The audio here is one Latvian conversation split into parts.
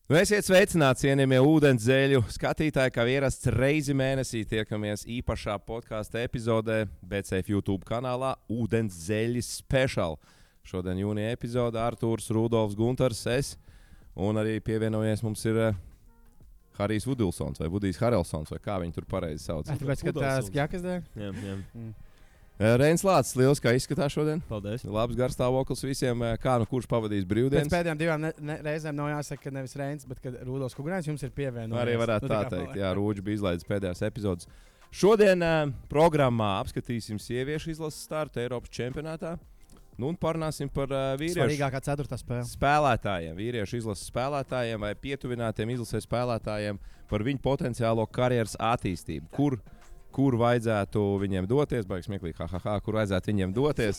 Esiet sveicināti, cienījamie ūdenzēļu skatītāji, kā ierasts reizi mēnesī tiekamies īpašā podkāstu epizodē BCF YouTube kanālā Ūdenzēļi Special. Šodien jūnija epizode Artūrs, Rudolfs, Guntars, es un arī pievienojies mums ir Harijs Vudilsons vai Vudijs Harelsons, vai kā viņi tur pareizi sauc. Tāpēc, ka tās ģakas dēļ? Jā. Reinis Lācis, liels, kā izskatās šodien. Paldies. Labs garstāvoklis visiem. Kā nu kurš pavadīs brīvdienas? Pēc pēdējām divām reizēm nav jāsaka, ka nevis Reinis, bet kad Rudolfs Kugrāns jums ir pievienojies. Arī varētu tā teikt, jā, Rūģis bija izlaidis pēdējās epizodes. Šodien programmā apskatīsim sieviešu izlases startu Eiropas čempionātā. Nu un parunāsim par vīriešu svarīgākā ceturtā spēle. Spēlētājiem, vīriešu izlases spēlētājiem vai pietuvinātiem izlases spēlētājiem par viņu potenciālo karjeras attīstību. Kur vajadzētu viņiem doties, baigs smieklīgi, kur vajadzētu viņiem doties.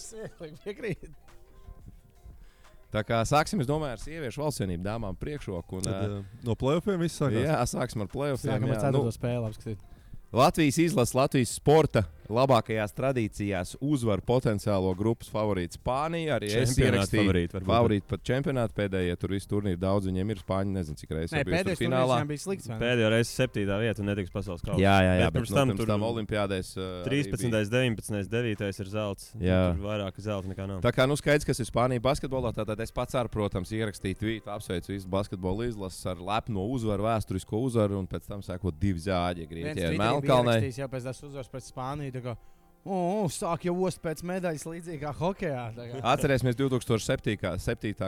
Tā kā sāksim, es domāju, ar sieviešu valstsvienību dāmām priekšroku. No play-offiem viss sākās? Jā, sāksim ar play-offiem. Sākam ar ceturto spēli apskatīt. Latvijas izlases, Latvijas sporta labākajās tradīcijās uzvar potenciālo grupas favorītu Spāniju. Arī es ierakstīju favorītu pat čempionātu pēdējie. Tur viss turnīri daudz viņiem ir. Spāņi nezinu, cik reizes pēdējais finālā bija slikts. Pēdējo reizi 7. vieta un netiks pasaules kausa. Jā, bet pirms tam olimpiādēs 13., 19., 9. ir zelts. Tur vairāk zelta nekā nav. Tā kā skaidrs, kas ir Spānija basketbolā, tad es pats ar, protams, ierakstīju tvītu, apsveicu visu basketbolu izlases ar lepno uzvaru, vēsturisko uzvaru un pēc tam sēkot 2 zāģi Grieķijā ar Melnkalnei. Jā, pēc tās uzvaras pret Spāniju. Sāk jau ost pēc medaļas līdzīgi kā hokejā. Atcerēsimies 2007.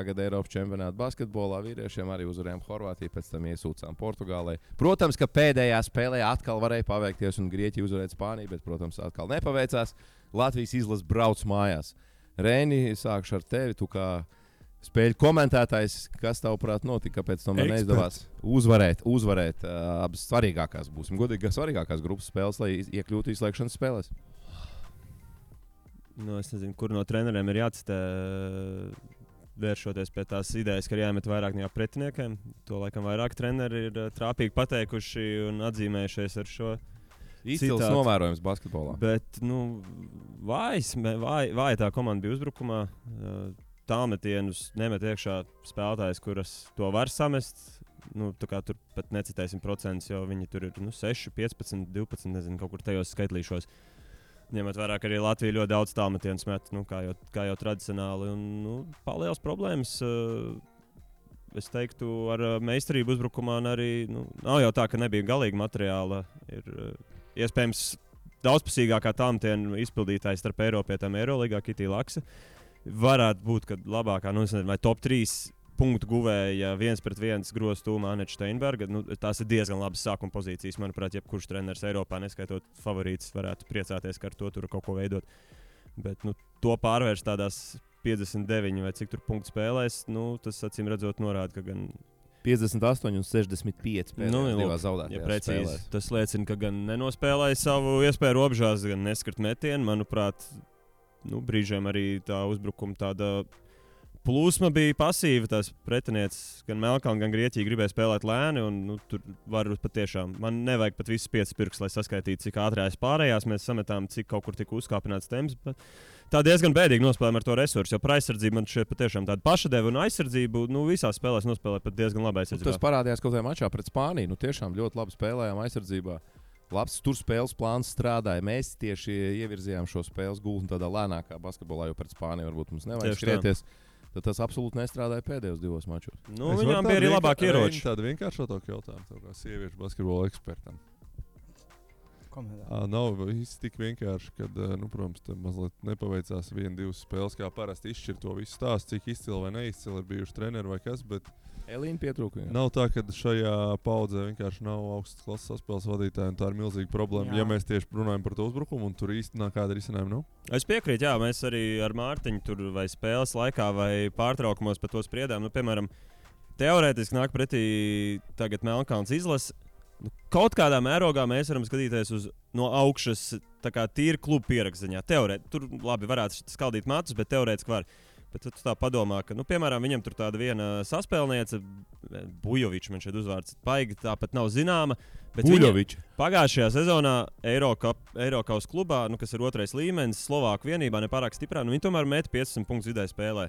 gada Eiropas čempionāta basketbolā. Vīriešiem arī uzvarējām Horvātiju, pēc tam iesūcām Portugālei. Protams, ka pēdējā spēlē atkal varēja paveikties un Grieķija uzvarēt Spāniju, bet, protams, atkal nepaveicās. Latvijas izlase brauc mājās. Reini, sākšu ar tevi. Tu kā spēļu komentētājs, kas tavuprāt notika, kāpēc tam neizdevās uzvarēt abas svarīgākās, būsim godīgi, svarīgākās grupas spēles, lai iekļūtu izslēgšanas spēlēs? Es nezinu, kur no treneriem ir jācitē, vēršoties pie tās idejas, ka ir jāmet vairāk no pretiniekiem. To laikam vairāk treneri ir trāpīgi pateikuši un atzīmējušies ar šo. Izcils novērojums basketbolā. Bet, vāja tā komanda bija uzbrukumā. Tālmetienus nemet iekšā spēlētājs, kuras to var samest. Tur pat necitēsim procentus, jo viņi tur ir 6, 15, 12, nezinu, kaut kur tajos skaitlīšos. Ņemot vērā, ka arī Latvija ļoti daudz tālmetienus met, kā jau tradicionāli. Palielas problēmas, es teiktu, ar meistarību uzbrukumā. Arī nav jau tā, ka nebija galīgi materiāla. Ir iespējams daudzpusīgākā tālmetienu izpildītājs starp Eiropietām Eirolīgā Kitija Laksa. Varētu būt, ka labākā, vai top 3 punktu guvēja 1-1 grozu tūmā Aneča Steinberga. Tās ir diezgan labas sākuma pozīcijas. Manuprāt, jebkurš treneris Eiropā, neskaitot favorītus, varētu priecāties, ka ar to tur kaut ko veidot. Bet to pārvērst tādās 59 vai cik tur punktu spēlēs, tas acīm redzot norāda, ka gan 58 un 65 pēdējās zaudētajās precīzi. Tas liecina, ka gan nenospēlēja savu iespēju robežās, gan neskart metienu. Manuprāt, brīžiem arī tā uzbrukuma tāda plūsma bija pasīva. Tās pretinieces gan Melnkalne, gan Grieķija gribēja spēlēt lēni. Tur var patiešām, man nevajag pat visus 5 pirkstus, lai saskaitītu, cik ātrās pārējās mēs sametām, cik kaut kur tika uzkāpināts temps. Tā diezgan bēdīgi nospēlējām ar to resursu, jo par aizsardzību man šeit patiešām tāda pašadeva un aizsardzību visās spēlēs nospēlēja pat diezgan labi aizsardzībā. Tas parādījās kaut kādā mačā pret Spāniju. Tiešām ļoti labi spēlējām aizsardzībā. Labs tur spēles plāns strādāja. Mēs tieši ievirzījām šo spēles gultni tādā lēnākā basketbolā, jo pret Spāniju varbūt mums nevajag skrieties. Tad tas absolūti nestrādāja pēdējos 2 mačos. Viņām bija arī labāki ieroči. Tāda vienkāršotāka jautājuma, kā sieviešu basketbola ekspertam. Nav viss tik vienkārši, kad, protams, mazliet nepaveicās 1-2 spēles, kā parasti izšķirt to visu stāstu, cik izcili vai neizcili ir bijuši treneri vai kas, bet Elīna pietrūka. Nav tā, ka šajā paudzē vienkārši nav augstas klases saspēles vadītāji, un tā ir milzīga problēma. Jā. Ja mēs tieši runājam par to uzbrukumu, un tur īstenībā kāda risinājuma nav? Es piekrītu, jā, mēs arī ar Mārtiņu tur vai spēles laikā vai pārtraukumos par to spriedām. Piemēram, teorētiski nāk pretī tagad Melnkalnes izlase. Kaut kādā mērogā mēs varam skatīties no augšas, tā kā tīri klubu pierakstziņā. Tur labi varētu skaldīt matus, bet teorētiski var. Bet tu tā padomā, ka, piemēram, viņam tur tāda viena saspēlniece, Bujovičs, man šeit uzvārds paigi, tāpat nav zināma. Bujovičs. Pagājušajā sezonā Eirokaus klubā, kas ir 2. līmenis, Slovāku vienībā nepārāk stiprā, viņi tomēr met 15 punktus vidēji spēlē.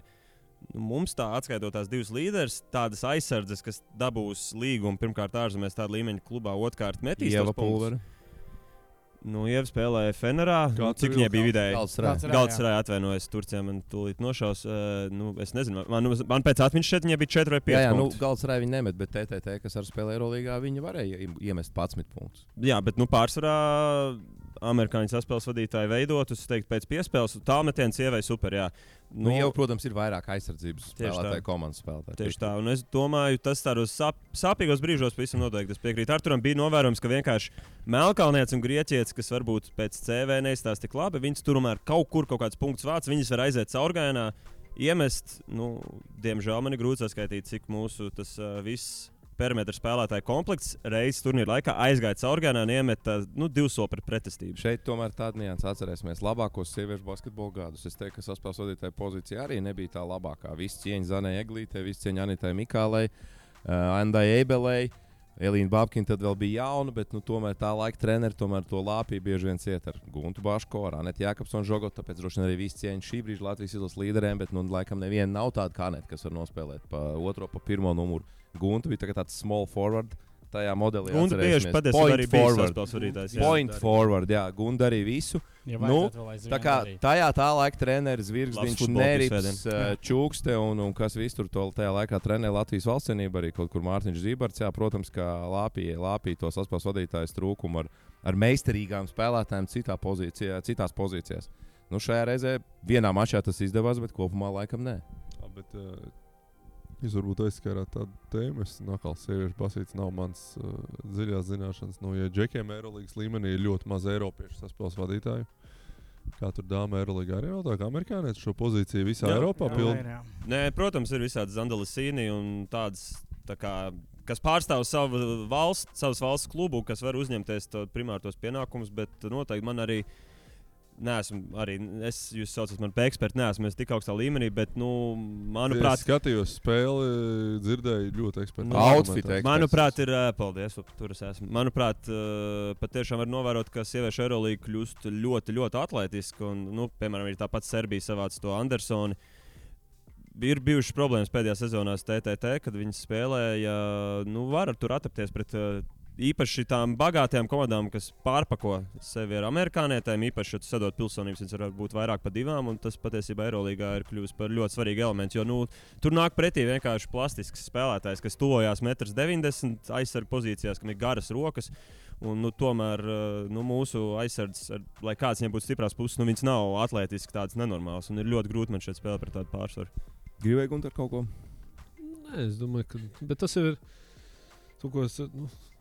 mums tā atskaitot tās divas līderes, tādas aizsardzes, kas dabūs līgumu pirmkārt ārzemēs tāda līmeņa klubā, otrkārt metīs tos punktus. Ieva spēlēja Fenerā. Cik viņai bija vidēji? Galatasaray atvainojas Turcijā, man tūlīt nošaus. Es nezinu, man pēc atmiņas šeit viņai bija 4 vai 5 punktus. Galatasaray viņa nemet, bet TTT, kas ar spēlē Eurolīgā, viņa varēja iemest 11 punktus. Jā, bet pārsvarā amerikāņu saspēles vadītāji veidot, es teiktu, pēc piespēles. Tālmetiens Ievai super, jā. Jau, protams, ir vairāk aizsardzības spēlētāju, komandas spēlētāju. Tieši tā, un es domāju, tas tādos sāpīgos brīžos pavisam noteikti. Es piekrītu Arturam, bija novērojams, ka vienkārši Melkalnietis un Grieķietis, kas varbūt pēc CV neizstāsta tik labi, viņas tomēr kaut kāds punkts vāc, viņas var aiziet caurgājienā, iemest, diemžēl man ir grūti saskaitīt, cik mūsu tas viss perimetra spēlētāju komplekts reizes turnīra laikā aizgāja caurgājienā un iemeta 2 soli pret pretestību. Šeit tomēr tāda nianses atcerēsimies labākos sieviešu basketbola gadus. Es teiktu, ka saspēles vadītāja pozīcija arī nebija tā labākā. Visi cieņi Zanai Eglītei, visi cieņi Anitai Mikālei, Andai Eibelei. Elīna Babkina tad vēl bija jauna, bet tomēr tā laika treneri tomēr to lāpīja bieži vien ciet ar Guntu Baško, ar Anetu Jākapsonu Žogotu. Tāpēc droši vien arī visi cieņi šī brīža Latvijas izlases līderiem, bet laikam neviena nav tāda kā Aneta, kas var nospēlēt pa otro, pa pirmo numuru. Gunta bija tāds small forward tajā modelī. Gunta tieši patiesībā arī bija saspēles vadītājs. Point forward, jā. Gunta arī visu. Tā kā tajā tā laika treneris Zvirgzdiņš, Nerips, Čūkste un kas viss tur tajā laikā trenē Latvijas valstsienību, arī kaut kur Mārtiņš Zībarts. Jā, protams, ka lāpīja to saspēles vadītājas trūkumu ar meistarīgām spēlētājiem citās pozīcijās. Šajā reizē vienā mačā tas izdevās, bet kopumā laikam nē. Jūs varbūt aizskārāt tādu tēmu. Es nakals sieviešu basīts nav mans dziļās zināšanas. Ja džekiem Eirolīgas līmenī ir ļoti maz eiropiešu saspēles vadītāju, kā tur dāma Eirolīgā arī nav tā, ka amerikānieši šo pozīciju visā Eiropā pilda? Nē, protams, ir visādi Zandalasīni un tādas, kas pārstāv savas valsts klubu, kas var uzņemties primārtos pienākumus, bet noteikti man arī jūs saucat mani par ekspertu, neesmu tik augstā līmenī, bet, manuprāt, es skatījos spēli, dzirdēju ļoti ekspertu. Outfit manuprāt, paldies, tur es esmu. Manuprāt, patiešām var novērot, ka sieviešu Eurolīga kļūst ļoti, ļoti atletiska, un, piemēram, ir tāpat Serbija savāca to Andersoni. Ir bijušas problēmas pēdējā sezonās TTT, kad viņas spēlēja, var tur atapties pret īpaši tām bagātajām komandām, kas pārpako sevi ar amerikānietēm, īpaši, ja tu sadod pilsonības, viņas var būt vairāk par 2, un tas patiesībā Eirolīgā ir kļuvis par ļoti svarīgu elementu, jo tur nāk pretī vienkārši plastisks spēlētājs, kas tuvojās 1,90 m aizsargu pozīcijās, kam ir garas rokas, un tomēr mūsu aizsardzes, lai kāds viņiem būtu stiprās puses, viņas nav atlētiski tādas nenormālas, un ir ļoti grūti man šeit spēlēt par tādu pārsvaru. Gribēji Gunter kaut ko? Nē, es domāju, ka bet tas ir to, ko es...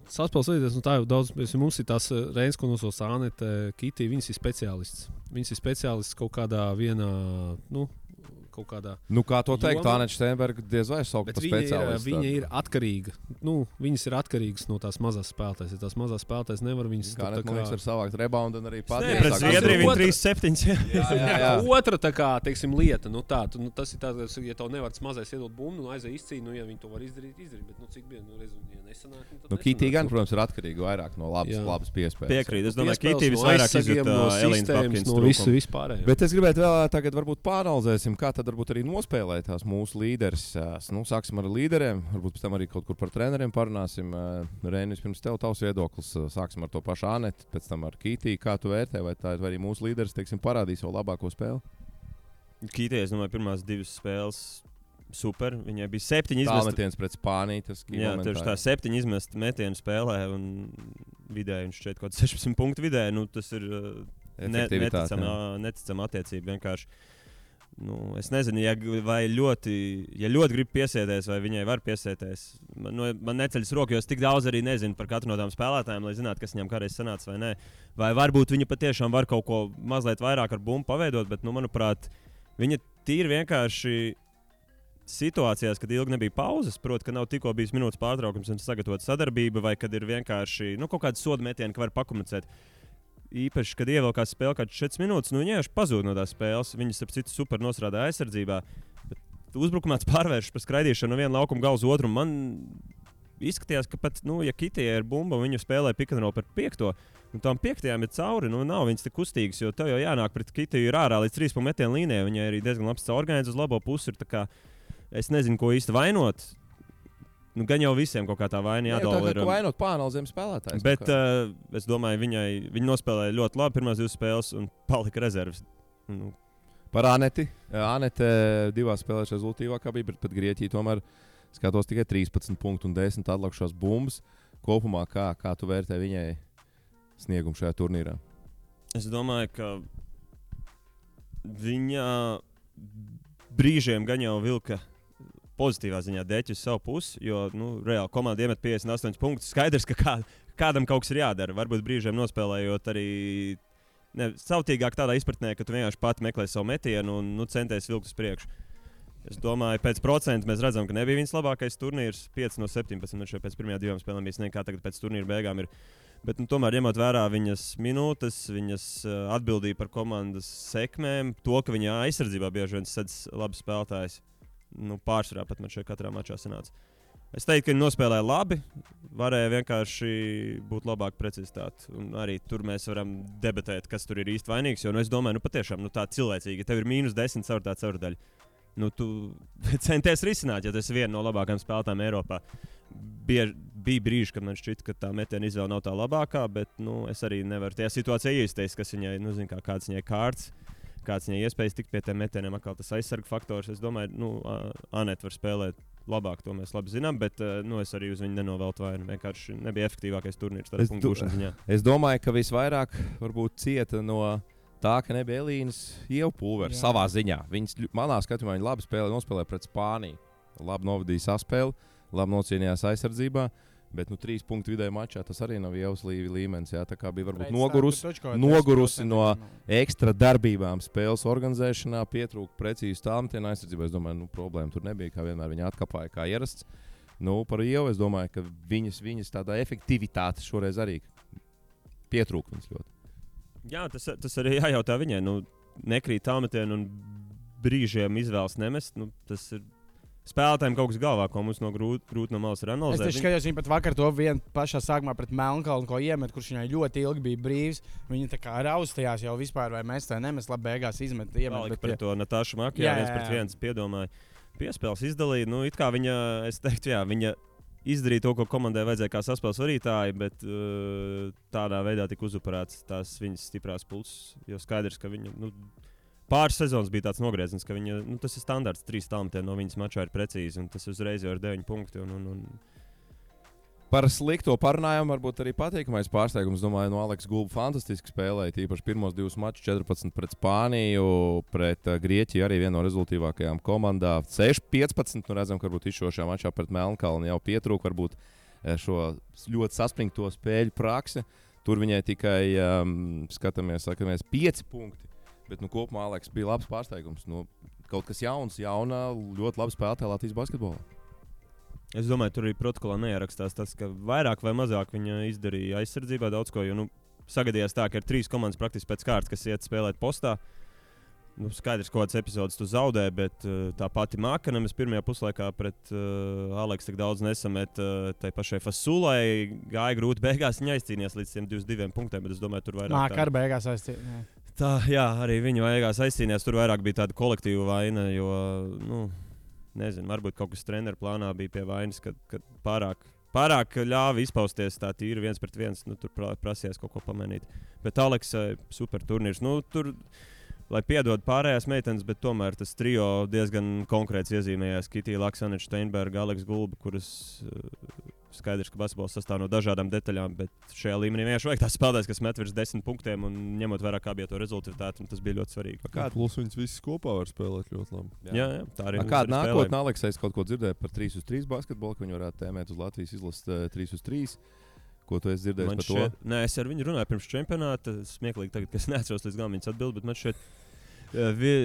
Saspēles vadītājs, tā jau daudz, mums ir tās Reinas, ko nosauc Anete, Kitī, viņas ir speciālists. Viņas ir speciālists kaut kādā vienā, kaut kādā... kā to teikt, Aneta Steinberga diez vai saukt par speciālistu. Viņa ir atkarīga. Viņas ir atkarīgas no tās mazās spēlētājas. Ja tās mazās spēlētājas nevar viņas... Kā Aneta man liekas var savākt reboundu un arī patīt. Pret Zviedriju viņa 3-7. Jā. Otra tā kā, teiksim, lieta. Tas ir tāds, ja tev nevar tas mazais iedot bumbu, aizēj izcīni, ja viņi to var izdarīt. Bet cik bija, ja nesanāk, tad Kitī gan, protams, ir atkarīga vairāk no labas piespējas. Piekrīt. Es domāju, Kitī visvairāk izjūt Elīnas Babkinas trūkumu. Vispārējā. Bet es gribētu vēl tagad varbūt pāranalizēsim, kā tad varbūt arī nospēlēt tās mūsu līderis. Sāksim ar līderiem, varbūt pēc tam arī kaut kur par treneriem parunāsim. Reinis, pirms tavs viedoklis, sāksim ar to pašu Anetu, pēc tam ar Kitī. Kā tu vērtē, vai arī mūsu līderis, parādīs savu labāko spēli? Kitī, es domāju, pirmās 2 spēles super. Viņai bija 7 izmesti. Tālmetiens pret Spāniju. Jā, tieši tā 7 izmesti metienu spēlē un vidēji viņš šeit kaut 16 punktu vidēji. Tas ir neticama attiecība vienkārši. Es nezinu, ja ļoti grib piesēties, vai viņai var piesēties. Man neceļas roku, jo es tik daudz arī nezinu par katru no tām spēlētājiem, lai zinātu, kas viņam kādreiz sanāca vai nē. Vai varbūt viņa patiešām var kaut ko mazliet vairāk ar bumbu paveidot, bet, manuprāt, viņa tīri vienkārši situācijās, kad ilgi nebija pauzes, proti, ka nav tikko bijis minūtes pārtraukums un sagatavot sadarbību, vai kad ir vienkārši kaut kāda soda metiena, ka var pakomunicēt. Īpaši, kad ievilkās spēle kāds 4 minūtes, viņa vienkārši pazūd no tās spēles. Viņas ap citu super nostrādā aizsardzībā. Bet uzbrukumā pārvēršas par skraidīšanu no viena laukuma gala uz otru. Man izskatījās, ka pat, ja Kitijai ir bumba, viņu spēlē pick-and-roll par 5. Un tām 5. ir cauri, nav viņas tik kustīgas, jo tev jau jānāk pret Kitiju ir ārā līdz 3 punktu metienu līnijai. Viņai arī diezgan labs caurgājiens uz labo pusi. es nezinu, ko īsti vainot. Nu, gan jau visiem kaut kā tā vaina jādala ir. Vainot pānalizēm spēlētājs. Bet es domāju, viņa nospēlēja ļoti labi pirmās 2 spēles un palika rezerves. Nu. Par Aneti. Anete 2 spēlēs rezultīvākā bija, bet pat Grieķija tomēr skatos tikai 13 punktu un 10 atlikušās bumbas. Kopumā kā tu vērtē viņai sniegumu šajā turnīrā? Es domāju, ka viņa brīžiem gan jau vilka pozitīvā ziņā dēķi uz savu pusi, jo reāli komanda iemet 58 punktus. Skaidrs, ka kādam kaut kas ir jādara. Varbūt brīžiem nospēlējot arī sautīgāk tādā izpratnē, ka tu vienkārši pati meklē savu metienu un centies vilkt uz priekšu. Es domāju, pēc procentu mēs redzam, ka nebija viņas labākais turnīrs. 5 no 17 šeit pēc pirmajām 2 spēlēm bija sniegta, kā tagad pēc turnīra beigām ir. Bet tomēr ņemot vērā viņas minūtes, viņas atbildību par komandas sekmēm, to, ka viņa aizsardzībā bieži vien sedz labs spēlētājs. Pārsvarā pat man šeit katrā mačā sanāca. Es teiktu, ka viņi nospēlēja labi, varēja vienkārši būt labāka precizitāte. Un arī tur mēs varam debatēt, kas tur ir īsti vainīgs. Jo es domāju, patiešām tā cilvēcīgi, ja tev ir -10 caur tā caurdaļa. Tu centies risināt, ja tas ir viena no labākajām spēlētājām Eiropā. Bija brīži, kad man šķita, ka tā metiena izvēle nav tā labākā, bet es arī nevaru tajā situācijā iesaistīties, kas viņai, kāds viņai kārts. Kāds viņai iespējas tikt pie tiem metieniem, atkal tas aizsarga faktors. Es domāju, Anete var spēlēt labāk, to mēs labi zinām, bet es arī uz viņu nenoveltu vainu. Vienkārši nebija efektīvākais turnīrs tādā punktu gūšanas ziņā. Es domāju, ka visvairāk varbūt cieta no tā, ka nebija Elīnas iepulvera savā ziņā. Viņas manā skatījumā viņa labi nospēlēja pret Spāniju. Labi novadīja saspēli, labi nocīnījās aizsardzībā. Bet 3 punktu vidēji mačā tas arī nav Ievas līmenis. Jā, tā kā bija varbūt nogurusi no ekstra darbībām spēles organizēšanā, pietrūka precīzi tālmetienu aizsardzībā. Es domāju, problēma tur nebija, kā vienmēr viņa atkāpāja kā ierasts. Par Ievu es domāju, ka viņas tādā efektivitāte šoreiz arī pietrūka viņas ļoti. Jā, tas arī jājautā viņai. Nekrīt tālmetienu un brīžiem izvēles nemest. Tas ir spēlētājiem kaut kas galvā, ko mums grūti no malas ir analizēt. Es skatījos, viņa pat vakar to vienu pašā sākumā pret Melnkalnu, ko iemet, kurš viņai ļoti ilgi bija brīvs. Viņa tā kā raustījās jau vispār, vai mest vai nemest, labi beigās iemet. Pret to Natāšu Makijā 1-1 piedomāja. Piespēles izdalīja. It kā viņa, es teiktu, viņa izdarīja to, ko komandai vajadzēja kā saspēles varītāji, bet tādā veidā tika uzupurēts tās viņas stiprās pulses. Jo skaidrs, ka viņa... Pāris sezonas bija tāds nogrieziens, ka viņa, tas ir standarts, 3 tālmetieni no viņas mačā ir precīzi, un tas uzreiz jau ir 9 punkti. Par slikto parunājumu varbūt arī patīkamais pārsteigums. Domāju, Aleks Gulba fantastiski spēlēja. Tīpaši pirmos 2 mačus, 14 pret Spāniju, pret Grieķiju arī viena no rezultīvākajām komandām. 6-15, redzam, ka varbūt izšošajā mačā pret Melnkalni jau pietrūka varbūt šo ļoti saspringto spēļu praksi. Tur viņai tikai skatāmies 5 punkti. Bet kopumā Aleks bija labs pārsteigums. Kaut kas jauns, ļoti labi spēlētāja Latvijas basketbolā. Es domāju, tur arī protokolā neierakstās tas, ka vairāk vai mazāk viņa izdarīja aizsardzībā daudz ko. Jo sagadījās tā, ka ir 3 komandas praktiski pēc kārtas, kas iet spēlēt postā. Skaidrs, kādas epizodes tu zaudē, bet tā pati Mākanemes pirmajā puslaikā pret Aleksu tik daudz nesamet. Tai pašai Fasulai gāja grūti beigās. Viņa aizcīnījās līdz 122 punktiem, bet es domāju, tur vairāk. Mākar beigās aizcīnījās. Jā, arī viņa beigās aizcīnījās. Tur vairāk bija tāda kolektīva vaina, jo, nezinu, varbūt kaut kas treneru plānā bija pie vainas, kad pārāk ļāva izpausties tā tīri 1-1. Tur prasījās kaut ko pamainīt. Bet Aleksai super turnīrs. Tur, lai piedod pārējās meitenes, bet tomēr tas trio diezgan konkrēts iezīmējās. Kitija Laksaneča, Steinberga, Aleks Gulba, kuras skaidrs, ka basketbols sastāv no dažādām detaļām, bet šajā līmenī vienkārši vajag tās spēlētājs, kas met virs 10 punktiem un ņemot vērā, kā bija to rezultātu, tas bija ļoti svarīgi. Plus viņas visas kopā var spēlēt ļoti labi. Jā, tā arī. Kāda nākotnē Aleksais kaut ko dzirdēja par 3-3 basketbolu, ka viņi varētu tēmēt uz Latvijas izlases 3-3? Ko tu esi dzirdējis par to? Nē, es ar viņu runāju pirms čempionāta. Smieklīgi tagad, ka es neatceros līdz galam viņas atbildi, bet man šeit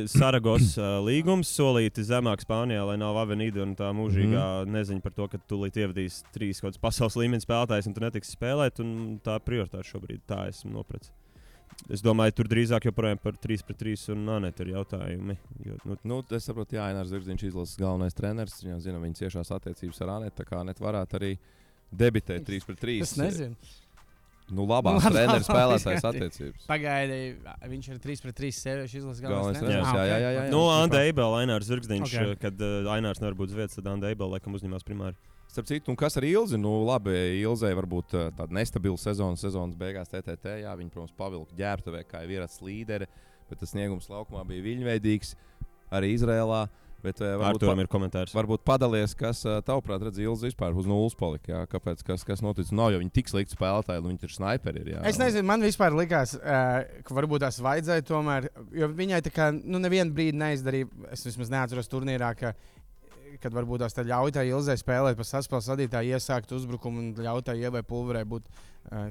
Saragos līgums solīti zemāk Spānijā, lai nav Avenida un tā mūžīgā neziņa par to, ka tu līdz ievadīs 3 kaut kāds pasaules līmenis spēlētājs un tu netiksi spēlēt, un tā prioritāte šobrīd tā esmu nopratis. Es domāju, tur drīzāk joprojām par 3-3 un Anete ir jautājumi. Es saprotu, Inārs Zirdziņš izlases galvenais treneris, viņam zina viņa ciešās attiecības ar Anetu, tā kā Anete varētu arī debitēt 3-3. Es nezinu. Labās treneris spēlētājs attiecības. Pagaidi, viņš ir 3-3 sieviešu izlases galvenais Galvenais treneris. jā. Nu, Anda Eibela, Ainārs Zirgzdiņš, Okay. kad Ainārs nevar būt uz vietas, tad Anda Eibela laikam uzņemās primāri. Starp citu, un kas ar Ilzi? Labi, Ilzei varbūt tāda nestabila sezonas beigās TTT. Jā, viņa, protams, pavilka ģērbtuvē, kā jau vīrats līderi, bet tas sniegums laukumā bija viļņveidīgs arī Izrēlā. Bet Arturam ir komentārs. Varbūt padalies, kas tavuprāt redz Ilzi vispār uz nulles palika. Jā? Kāpēc, kas notic? Nav jau viņi tik slikti spēlētāji, viņi ir snaiperi. Jā. Es nezinu, man vispār likās, ka varbūt tās vajadzēja tomēr, jo viņai tā kā nevienu brīdi neizdarīja, es vismaz neatceros turnīrā, kad varbūt tās ļauj tai Ilzei spēlēt pa saspēles vadītāju, iesākt uzbrukumu un ļauj tai Ievai Pulverei būt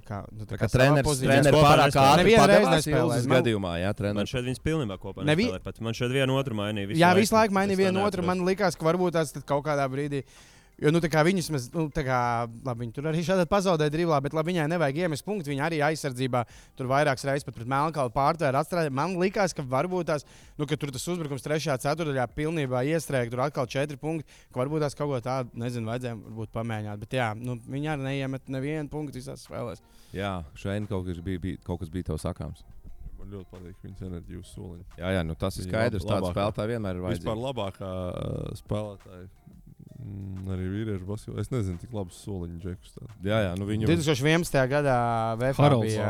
kā treneris pārāk ātri padalās Ilzes gadījumā. Jā, Man šeit viņas pilnībā kopā nespēlē. Man šeit vienu otru mainīja. Jā, visu laiku mainīja vienu otru. Man likās, ka varbūt tās kaut kādā brīdī. Jo, viņas, labi, viņi tur arī šādi pazaudēja driblā, bet labi, viņai nevajag iemest punktu. Viņa arī aizsardzībā tur vairākas reizes pat pret Melnkalnu pārtvēra atstrādāja. Man likās, ka varbūt tās, ka tur tas uzbrukums 3. ceturdaļā pilnībā iestrēga, tur atkal 4 punkti, ka varbūt tās kaut ko tādu, nezinu, vajadzēja pamēģināt. Bet jā, viņi arī neiemet nevienu punktu visās spēlēs. Jā, šeit kaut kas bija tev sakāms. Man ļoti patīk viņas enerģija uz soliņa. Jā, tas ir skaidrs. Tāds spēlētājs vienmēr ir vajadzīgs. Vispār labākā spēlētāja. Arī vīriešu basketbolā. Es nezinu, cik labs soliņu džekus. Jā, viņu 2011. gadā VFA bija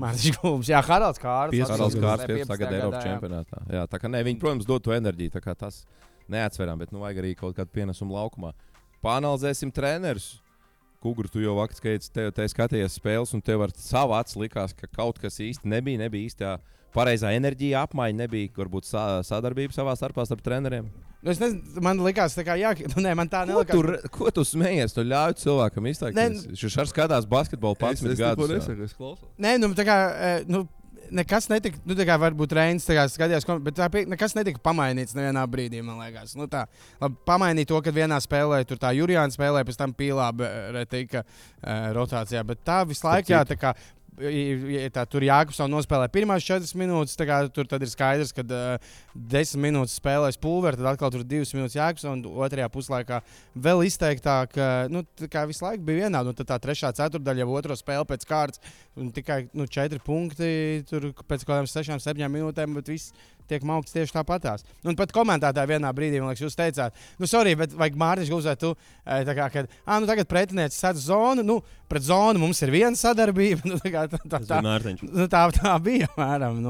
Mārtiņš Gulbs. Jā, Haralds Kārlis. Haralds Kārlis 15. gada Eiropas čempionātā. Jā, tā kā viņi, protams, dod to enerģiju. Tā kā tas neatsveram, bet vajag arī kaut kādu pienesumu laukumā. Pāanalizēsim trenerus. Kugru, tu jau vakar skatījies spēles, un tev ar savu acu likās, ka kaut kas īsti nebija īstā pareizā enerģija, apmaiņa, nebija varbūt sadarbība savā starpā starp treneriem. Es nezinu, man likās, ka man tā nelikās. Ko tu smējies? Tu ļauj cilvēkam izteikties. Viņš arī skatās basketbolu 11 gadus. Es klausos. Nē, nekas netika, varbūt Reinis skatījās, bet nekas netika pamainīts nevienā brīdī, man liekas. Pamainīt to, kad vienā spēlē tur tā Jurijāna spēlē, pēc tam Pīlāba retika rotācijā, bet tā visu laiku, jā, tā kā tur Jākubsons nospēlē pirmās 4 minūtes. Tur ir skaidrs, ka 10 minūtes spēlēs Pulveri, tad atkal tur 2 minūtes Jākubsons, un otrajā puslaikā vēl izteiktāk. Visu laiku bija vienādi. Tad tā 3. ceturdaļa jau otro spēli pēc kārtas, un tikai 4 punkti tur pēc kaut kādām 6-7 minūtēm, bet viss tiek maukts tieši tāpatās. Un pat komentētāji vienā brīdī, man liekas, jūs teicāt, sorry, bet vajag Mārtiņš Gulbs, tu tagad pretinieci sadz zonu, pret zonu mums ir viena sadarbība. Tā bija, mēram.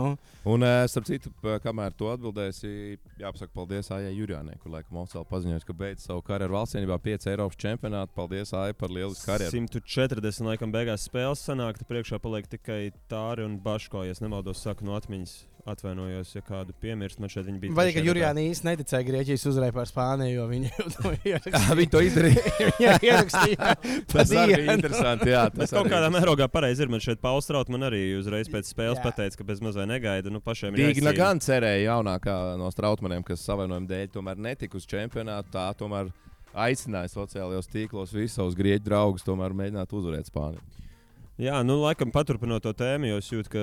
Un, starp citu, kamēr tu atbildēsi, jāpasaka paldies Aijai Jurijānai, kur laikam oficiāli paziņoja, ka beidz savu karjeru valstsienībā 5 Eiropas čempionātu. Paldies, Aija, par lielisku karjeru. 140 laikam beigās spēles sanāk, tad priekšā paliek tikai Tāri un Baško, ja nemaldos, saku no atmiņas. Atvainojos, ja kādu piemirst. Man šeit bija. Vai ka Jurijāna īsti neticēja Grieķijas uzvarai pār Spāniju, jo viņi to ierakstīja? Viņi to izdarīja. Jā, ierakstīja. Tas arī bija interesanti. Jā, tas kaut kādā mērogā pareizi ir. Man šeit Pauls Straut man arī uzreiz pēc spēles pateica, ka bez mazai negaida. Pašiem ir Dīgna gan cerēja jaunākā no Strautmaniem, kas savainojuma dēļ tomēr netika uz čempionātu. Tā tomēr aicināja sociālajos tīklos visus savus grieķu draugus tomēr mēģināt uzvarēt Spāniju. Jā, laikam paturpinot to tēmu, jo es jūtu, ka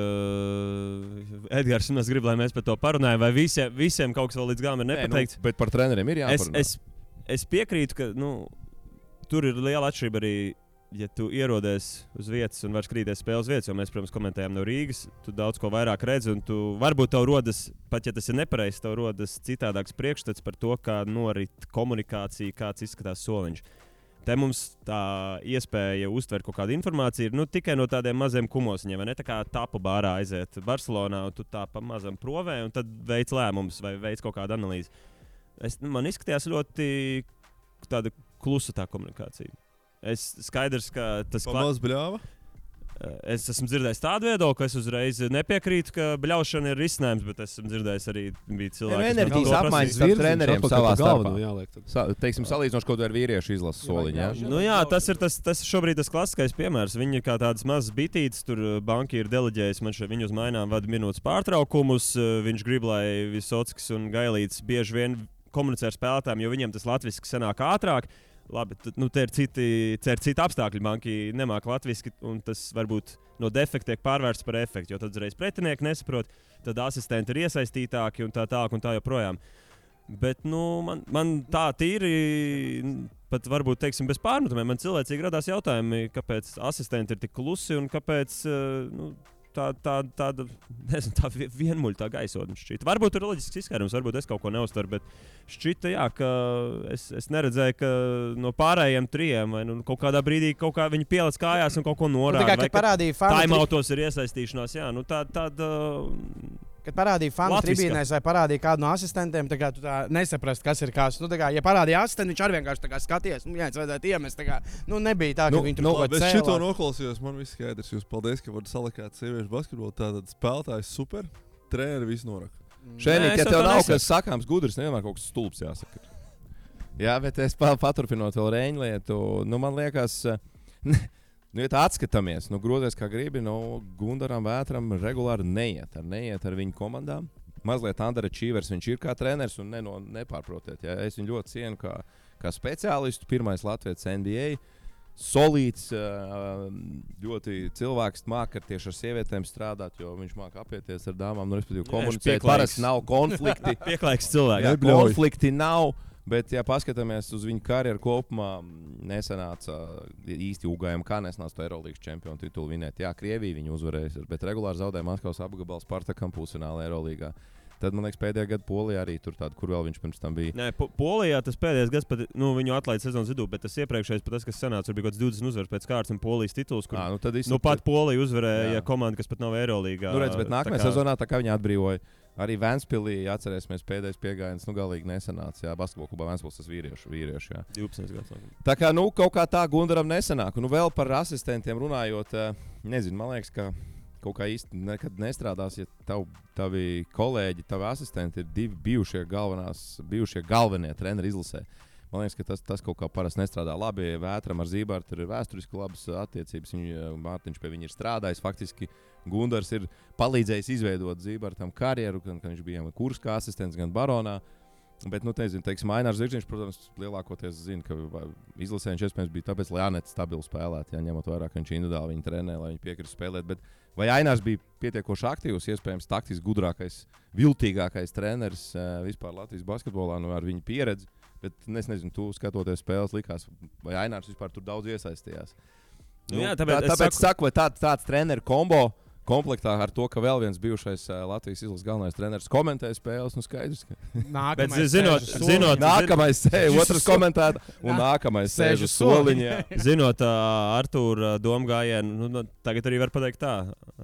Edgars mums grib, lai mēs par to parunājam, vai visiem kaut kas vēl līdz galam ir nepateikts. Bet par treneriem ir jāparunā. Es piekrītu, ka tur ir liela atšķirība arī, ja tu ierodies uz vietas un vari skrīties spēles vietas, jo mēs, protams, komentējam no Rīgas, tu daudz ko vairāk redzi, un tu varbūt tev rodas, pat ja tas ir nepareizs, tev rodas citādāks priekšstats par to, kā norit komunikācija, kāds izskatās soliņš. Te mums tā iespēja uztvert kaut kādu informāciju ir tikai no tādiem maziem kumosiņiem. Tā kā tapu bārā aiziet Barcelonā, un tu tā pa mazam provē, un tad veic lēmumus vai veic kaut kādu analīzi. Man izskatījās ļoti tāda klusa tā komunikācija. Skaidrs, ka tas Pamaz bļāva? Es esmu dzirdējis tādu viedokli, ka es uzreiz nepiekrītu, ka bļaušana ir risinājums, bet esmu dzirdējis arī cilvēku, kas enerģijas apmaiņas starp treneriem savā starpā. Teiksim, salīdzinoši kaut vai ar vīriešu izlases soliņu. Jā, tas šobrīd tas klasiskais piemērs. Viņi ir kā tādas mazas bitītes, tur banki ir deleģējis, man šeit viņu uz mainām vada minūtes pārtraukumus. Viņš grib, lai Visockis un Gailīts bieži vien komunicē ar spēlētājiem, jo viņiem tas latviski sanāk ātrāk. Labi, te ir citi apstākļi. Banki nemāca latviski, un tas varbūt no defekta tiek pārvērsts par efektu. Jo tad uzreiz pretinieki nesaprot, tad asistenti ir iesaistītāki un tā joprojām. Bet man tā tīri, pat varbūt teiksim, bez pārmetumiem, man cilvēcīgi radās jautājumi, kāpēc asistenti ir tik klusi un kāpēc tāda vienmuļa tā gaisotne šķita. Varbūt tur ir loģisks izskaidrojums, varbūt es kaut ko neuztveru, bet šķita, jā, ka es neredzēju, ka no pārējiem trijiem vai kaut kādā brīdī viņi pielic kājās un kaut ko norāda. Kad parādīja fanu taimautos ir iesaistīšanās, jā, tāda... Kad parādīja fanu tribīnēs vai parādīja kādu no asistentiem, tā kā tu tā nesaprast, kas ir kas. Ja parādīja asistentu, viņš arī vienkārši skaties, jā, vajadzētu iemest. Nebija tā, ka viņi tur kaut ko cēlā. Es šito noklausījos, man viss skaidrs. Jūs paldies, ka varat salikāt sieviešu basketbolu. Tātad spēlētājs super, treneri visu noraka. Šeit, ja tev nav kas sakāms gudrs, nevienmēr kaut kas stulbs jāsaka. Jā, bet es paturpinot vēl Reņu lietu, man liekas... ja tā atskatāmies, grozies kā gribi, Gundaram Vētram regulāri neiet ar viņu komandām. Mazliet underachievers viņš ir kā treneris un nepārprotiet. Ja? Es viņu ļoti cienu kā speciālistu, pirmais Latvijas NBA. Solīts, ļoti cilvēks māca tieši ar sievietēm strādāt, jo viņš māca apieties ar dāmām, respektīvi komunicēt. Parasti nav konflikti. Pieklājīgs cilvēks. Jā, konflikti nav. Bet, ja paskatāmies uz viņu karjeru kopumā, nesanāca īsti ugājumi, kā nesanāca to Eirolandes čempionu titulu vinēt. Jā, Krievija viņu uzvarēja, bet regulāri zaudēja Maskavas apgabalu Spartakam pusfinālā Eirolandā. Tad, man liekas, pēdējā gada Polijā arī tur tāda, kur vēl viņš pirms tam bija. Nē, Polijā tas pēdējais gads, pat, viņu atlaida sezonas vidū, bet tas iepriekšējais, pat tas, kas sanāca, bija kaut kāds 20 uzvaras pēc kārtas un Polijas tituls, kur pat Polija uzvarēja komanda, kas pat nav Eirolandā. Bet nākamajā sezonā tā kā viņi atbrīvoja. Arī Ventspilī, atcerēsimies, pēdējais piegājiens, galīgi nesanāca. Jā, basketbola klubā Ventspils tas vīriešu. Jā. 12 gadus. Tā kā, kaut kā tā Gundaram nesanāk. Vēl par asistentiem runājot, nezinu, man liekas, ka kaut kā īsti nekad nestrādās, ja tavi kolēģi, tavi asistenti ir divi bijušie galvenie treneri izlasē. Man liekas, ka tas kaut kā parasti nestrādā labi. Vētram ar Zībārtu tur ir vēsturiski labas attiecības. Mārtiņš pie viņa ir strādājis. Faktiski Gundars ir palīdzējis izveidot Zībārtam karjeru, gan viņš bija kurs kā asistents, gan baronā. Bet, teiksim, Ainārs Zirgziņš, protams, lielākoties zina, ka izlasē viņš iespējams bija tāpēc, lai Anets stabili spēlētu, ņemot vērā, ka viņš individuāli viņu trenē, lai viņi piekristu spēlēt. Bet vai Ainārs bija pietiekoši aktīvs, iespējams, taktiski gudrākais, viltīgākais treneris vispār Latvijas basketbolā, ar viņu pieredzi? Bet es nezinu, tu skatoties spēles, likās, vai Ainārs vispār tur daudz iesaistījās. Jā, tāpēc saku, vai tāds treneru kombo komplektā ar to, ka vēl viens bijušais Latvijas izlases galvenais treneris komentē spēles, skaidrs, ka nākamais sēž, otrs komentēta un nākamais sēž uz soliņa. Zinot Artūra domu gājienu, tagad arī var pateikt tā,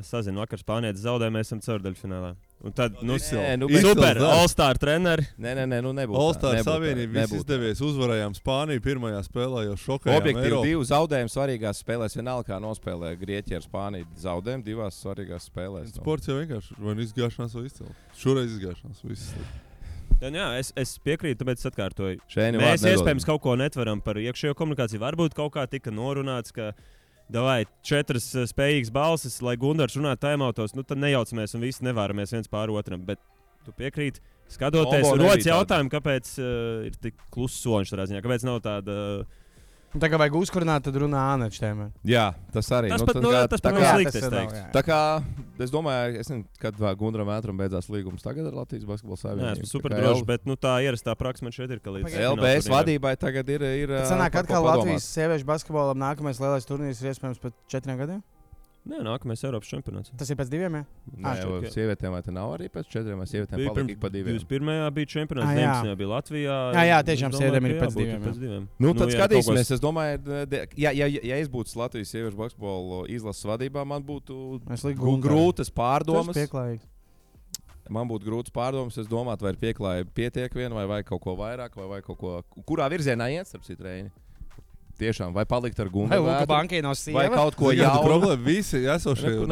sazinu, vakar Spānietis zaudēja, mēs esam ceturdaļfinālā. Un tad, super, All-Star treneri. Nē, nebūtu. All-Star Savienība viss izdevies, uzvarējām Spāniju pirmajā spēlē, jau šokējām. Objektīvi 2 zaudējumi svarīgās spēlēs, vienalga kā nospēlē Grieķija ar Spāniju. Zaudējumi 2 svarīgās spēlēs. Sports jau vienkārši, vai nu izgāšanās vai izcēlēt. Šoreiz izgāšanās, viss. Jā, es piekrītu, tāpēc atkārtoju. Mēs iespējams kaut ko netveram par iekšējo komunikāciju. Varbūt kaut kā tika norunāts, ka davai 4 spējīgas balsis, lai Gundars runātu taimautos, tad nejaucamies un visi nevāramies viens pār otram. Bet tu piekrīti, skatoties, rodas jautājumu, kāpēc ir tik kluss soļš tādā ziņā, kāpēc nav tāda... Tā kā vajag uzkurināt, tad runā Ānečs tēmē. Jā, tas arī. Tas pat nav slikti, es teiktu. Tā kā, es domāju, kad Gundaram Vētram beidzās līgums tagad ar Latvijas basketbola savienību. Jā, esmu super drošs, bet tā ierastā praksa man šeit ir, ka līdz LBS vadībai tagad ir sanāk atkal Latvijas sieviešu basketbolam nākamais lielais turnīrs ir iespējams pēc 4 gadiem? Nē, nākamais Eiropas čempionāts. Tas ir pēc 2, jā? Nē, sievietēm vai te nav arī pēc 4, vai sievietēm palika pa 2? 21. bija čempionāts, 19. bija Latvijā. Jā, tiešām sievietēm ir pēc 2. Tad skatīsimies, es domāju, ja es būtu Latvijas sieviešu basketbolu izlases vadībā, man būtu grūtas pārdomas. Man būtu grūts pārdomas, es domātu, vai ir pieklājība pietiek vien, vai kaut ko vairāk, vai kaut ko, kurā virzienā iet, starp citu, Reini. Tiešām, vai palikt ar Gundaru Vētru, vai kaut ko jaunu. Problēma visi esošie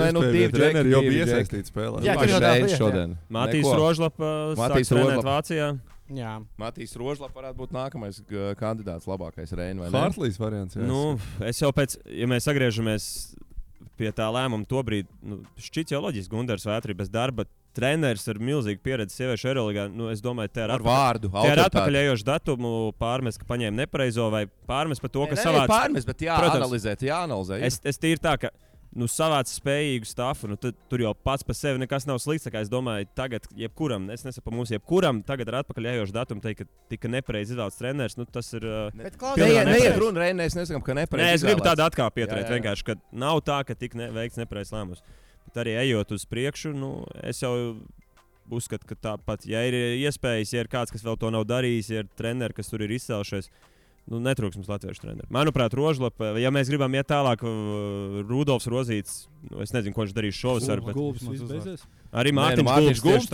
treneri jau bija iesaistīti spēlē. Jā, šeit šodien. Matīs Rožlapa sāk trenēt Vācijā. Jā. Matīs Rožlapa varētu būt nākamais kandidāts labākais Reini, vai ne? Hartlīs variants. Es jau pēc, ja mēs sagriežamies pie tā lēmuma tobrīd, šķiet jau loģiski Gundars Vētri bez darba. Treneris ar milzīgu pieredzi sieviešu Eirolandā, es domāju, te ir atpakaļējošu datumu pārmest, ka paņēma nepareizo vai pārmest par to, ka savāds. Pārmest, bet jāanalizē. Es tīri tā, ka savāc spējīgu stāfu, tur jau pats par sevi nekas nav slikts. Es domāju, tagad jebkuram, es nesaku mums, jebkuram tagad ar atpakaļ ejošu datumu teikt, ka tika nepareizi izvēlēts treneris. Tas ir. Neiet runa, mēs nesakām, ka nepareizi. Nē, es gribu tādu atkāpi pieturēt. Vienkārši, ka nav tā, ka tika veikts nepareizs lēmums. Bet arī ejot uz priekšu, es jau uzskatu, ka tāpat, ja ir iespējas, ja ir kāds, kas vēl to nav darījis, ja ir treneri, kas tur ir izcēlušies. Netrūks mums latviešu treneru. Manuprāt, Rožlapa, ja mēs gribam iet tālāk, Rudolfs Rozīts, es nezinu, ko viņš darīs šovasar. Arī Mārtiņš Gulbs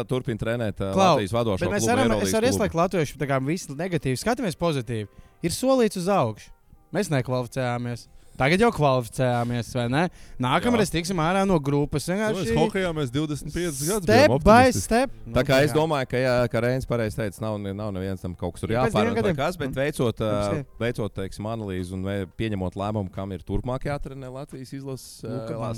turpina trenēt Latvijas vadošo klubu. Es varu ieslēgt latviešu, tā kā visu negatīvi. Skatāmies pozitīvi. Ir solīts uz augšu. Mēs nekvalificējāmies. Tagad jau kvalificējāmies, vai ne? Nākamreiz tiksim ārā no grupas. Mēs hokejā mēs 25 gadus step by step. Tā kā es domāju, ka Reinis pareizi teica, nav neviens tam kaut kas tur jāpārāk kas, bet veicot teiksim, analīzi un pieņemot lēmumu, kam ir turpmāk jātrenē Latvijas izlases,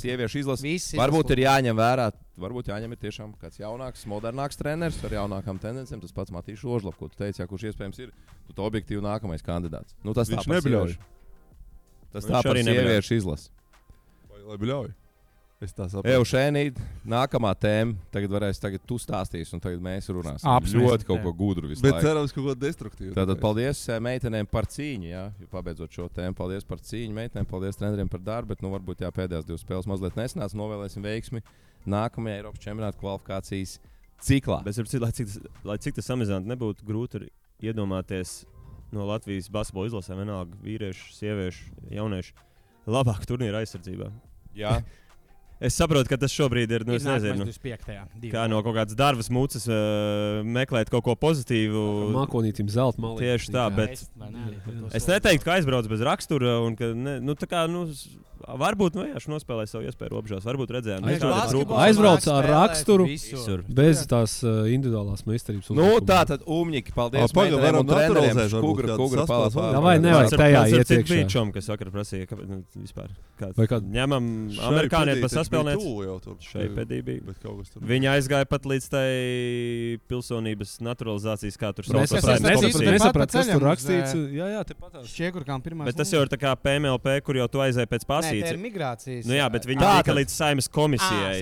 sieviešu izlases. Varbūt ir jāņem vērā, varbūt jāņem ir tiešām kāds jaunāks, modernāks treneris ar jaunākām tendencēm. Tas pats Matīšs Rožlap, ko tu teici, kurš iespējams ir objektīvi nākamais kandidāts. Tas viņš nebļauj. Tas tā par sieviešu izlasi. Lai bļauj. Es tā saprotu. Eušēnī, nākamā tēma. Tagad tu stāstīsi, un tagad mēs runāsim. Ļoti kaut ko gudru visu laiku. Bet cerams, kaut ko destruktīvu. Tātad paldies meitenēm par cīņu, jā. Pabeidzot šo tēmu. Paldies par cīņu meitenēm, paldies treneriem par darbu, bet varbūt pēdējās 2 spēles mazliet nesanāca. Novēlēsim veiksmi nākamajā Eiropas čempionāta kvalifikācijas ciklā. Bet, lai cik tas samazinātu, nebūtu grūti iedomāties no Latvijas basketbola izlasēm, vienalga vīriešu, sieviešu, jauniešu, labāk turnīra aizsardzībā. Jā. Es saprotu, ka tas šobrīd ir, es nezinu, kā no kaut kādas darbas mucas meklēt kaut ko pozitīvu. Mākonītim zelta malī. Tieši tā, bet es neteiktu, ka aizbrauc bez rakstura un ka, varbūt nospēlēja savu iespēju robežās, varbūt redzējām. Aizbrauc ar raksturu bez tās individuālās meistarības. Tā tad Umņiki, paldies meitenēm un treneriem. Kugra palās. Vai nevajag tajā ietiekšā. Cik Vīčom, kas vakar prasīja, vispār. Ņemam amerikānieti pa saspēlēt. Šeipedī bija. Viņi aizgāja pat līdz tai pilsonības naturalizācijas, kā tur sauc. Nesaprat, kas tur rakstīts. Jā, te patās. Bet tas jau ir tā kā PMLP, kur jau tu aizēji pēc pasītes. Migrācijas. Jā, bet viņi tika līdz Saeimas komisijai.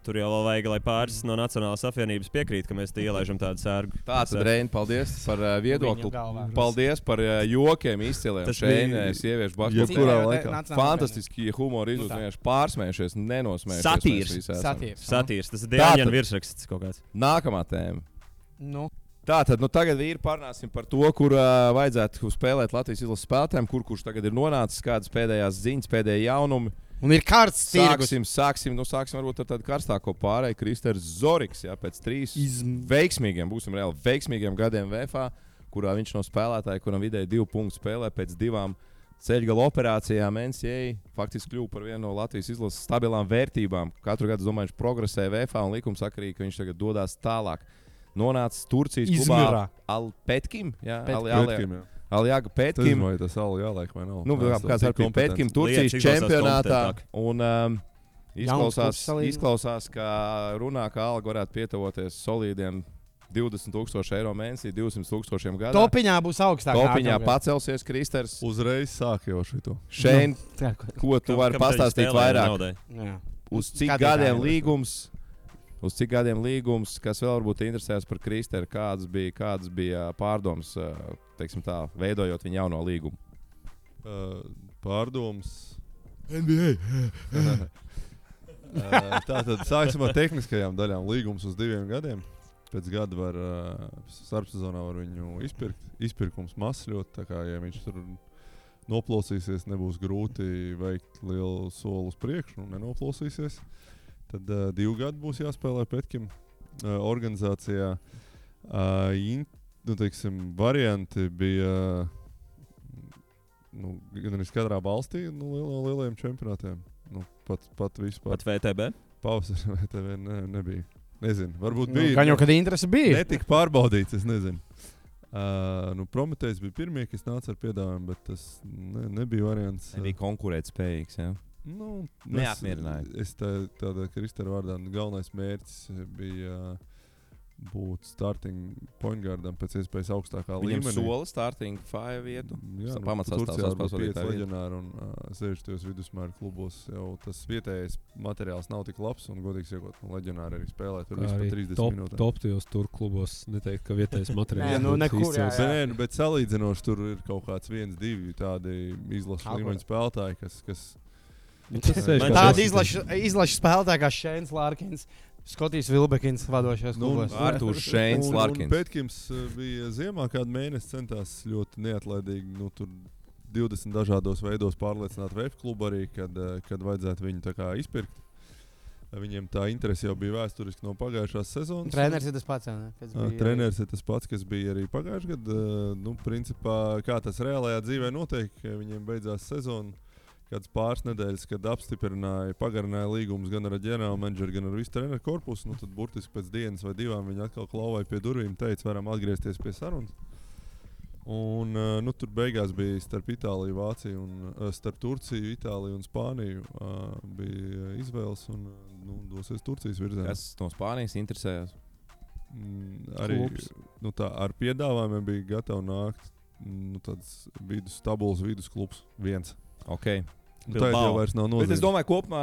Tur jau vēl vajag, lai pāris no Nacionālās apvienības piekrīt, ka mēs te ielaižam tādu sērgu. Tātad, Reini, paldies par viedokli. Paldies par jokiem izciliem. Šeit sieviešu basketbolā. Fantastiski humori izjūtas, pārsmējušies, nenosmējušies. Satīrs. Tas ir Dēļņa virsraksts kaut kāds. Nākamā tēma. Tātad, tagad vīri parunāsim par to, kur vajadzētu spēlēt Latvijas izlases spēlētājiem, kurš tagad ir nonācis, kādas pēdējās ziņas, pēdējie jaunumi. Un ir karsts tirgus. Sāksim varbūt ar tādu karstāko pārēju. Kristers Zoriks, pēc 3 veiksmīgiem, būsim reāli veiksmīgiem gadiem VFA, kurā viņš no spēlētāja, kuram vidēji 2 punktu spēlē pēc 2 ceļgala operācijām NCAA, faktiski kļuva par vienu no Latvijas izlases stabilām vērtībām. Katru gadu, domāju, viņš progresē VFA un likumsakarīgi, ka viņš tagad dodās tālāk. Nonācis Turcijas klubā Alpetkim. Aljaga Petkim. Vai tas jāliek vai nav? Kāds ar Petkim Turcijas čempionātā. Un izklausās, ka runā, ka alga varētu pietavoties solīdiem 20,000 eiro mēnesī, 200,000 gadā. Topiņā būs augstāk. Topiņā pacelsies Kristers. Uzreiz sāk jau šito. Šeit, ko tu vari pastāstīt vairāk? Uz cik gadiem līgums? Uz cik gadiem līgums, kas vēl varbūt interesēs par Kristeru, kādas bija pārdomas, teiksim tā, veidojot viņa jauno līgumu? Pārdomas NBA. Tātad sāksim ar tehniskajām daļām. Līgums uz 2 gadiem. Pēc gada var starpsezonā var viņu izpirkums masļot. Tā kā, ja viņš tur noplosīsies, nebūs grūti veikt lielu soli uz priekšu un nenoplosīsies. Tad 2 gadi būs jāspēlē Petkim organizācijā. Varianti bija gan arī katrā valstī lielajiem čempionātiem. Pat vispār. Pat VTB? Pausas VTB nebija. Nezinu, varbūt bija. Gan jau, kad interese bija. Netika pārbaudīts, es nezinu. Prometējs bija pirmie, kas nāca ar piedāvājumu, bet tas nebija variants. Nebija konkurētspējīgs, jā. Neapmierināja. Es tādā Kristera vārdā galvenais mērķis bija būt starting point guardam pēc iespējas augstākā Viņam līmenī. sola starting 5 vietu. Jā, Pamatsastāvs Turcijā spēles būtu 5 vadītāja vieta. leģionāri un 60 vidusmēra klubos jau tas vietējais materiāls nav tik labs un godīgi sakot, leģionāri arī spēlē tur vispār 30 minūtēm. Top tajos tur klubos neteikt, ka vietējais materiāls. Nē, nu, nekur, jā, jā. Bet salīdzinoši tur ir kaut kāds 1-2 tādi izlases līmeņa spēlētāji, kas Tāda izlaša spēlētāja kā Šēns Lārkins. Skotijs Vilbekins vadošais klubos. Artūrs Šēns Larkins. Pētkims bija ziemā kādu mēnesi centās ļoti neatlaidīgi, tur 20 dažādos veidos pārliecināt VF klubu arī, kad vajadzētu viņu tā kā izpirkt. Viņiem tā interese jau bija vēsturiski no pagājušās sezonas. Treneris ir tas pats, ne? Treneris ir tas pats, kas bija arī pagājušajā gadā. Principā, kā tas reālajā dzīvē notiek, viņiem beidzās sezona. Kāds pāris nedēļas, kad apstiprināja, pagarināja līgumus gan ar ģenerālu menedžeru, gan ar visu treneru korpusu, tad burtiski pēc dienas vai divām viņi atkal klauvēja pie durvīm, teica, varam atgriezties pie sarunas. Un tur beigās bija starp Itāliju, Vāciju, starp Turciju, Itāliju un Spāniju bija izvēles un dosies Turcijas virzienā. Kas no Spānijas interesējās? Arī ar piedāvājumiem bija gatavi nākt tāds tabulas vidusklubs viens. Okay. Tā jau vairs nav nozīme. Bet es domāju, kopumā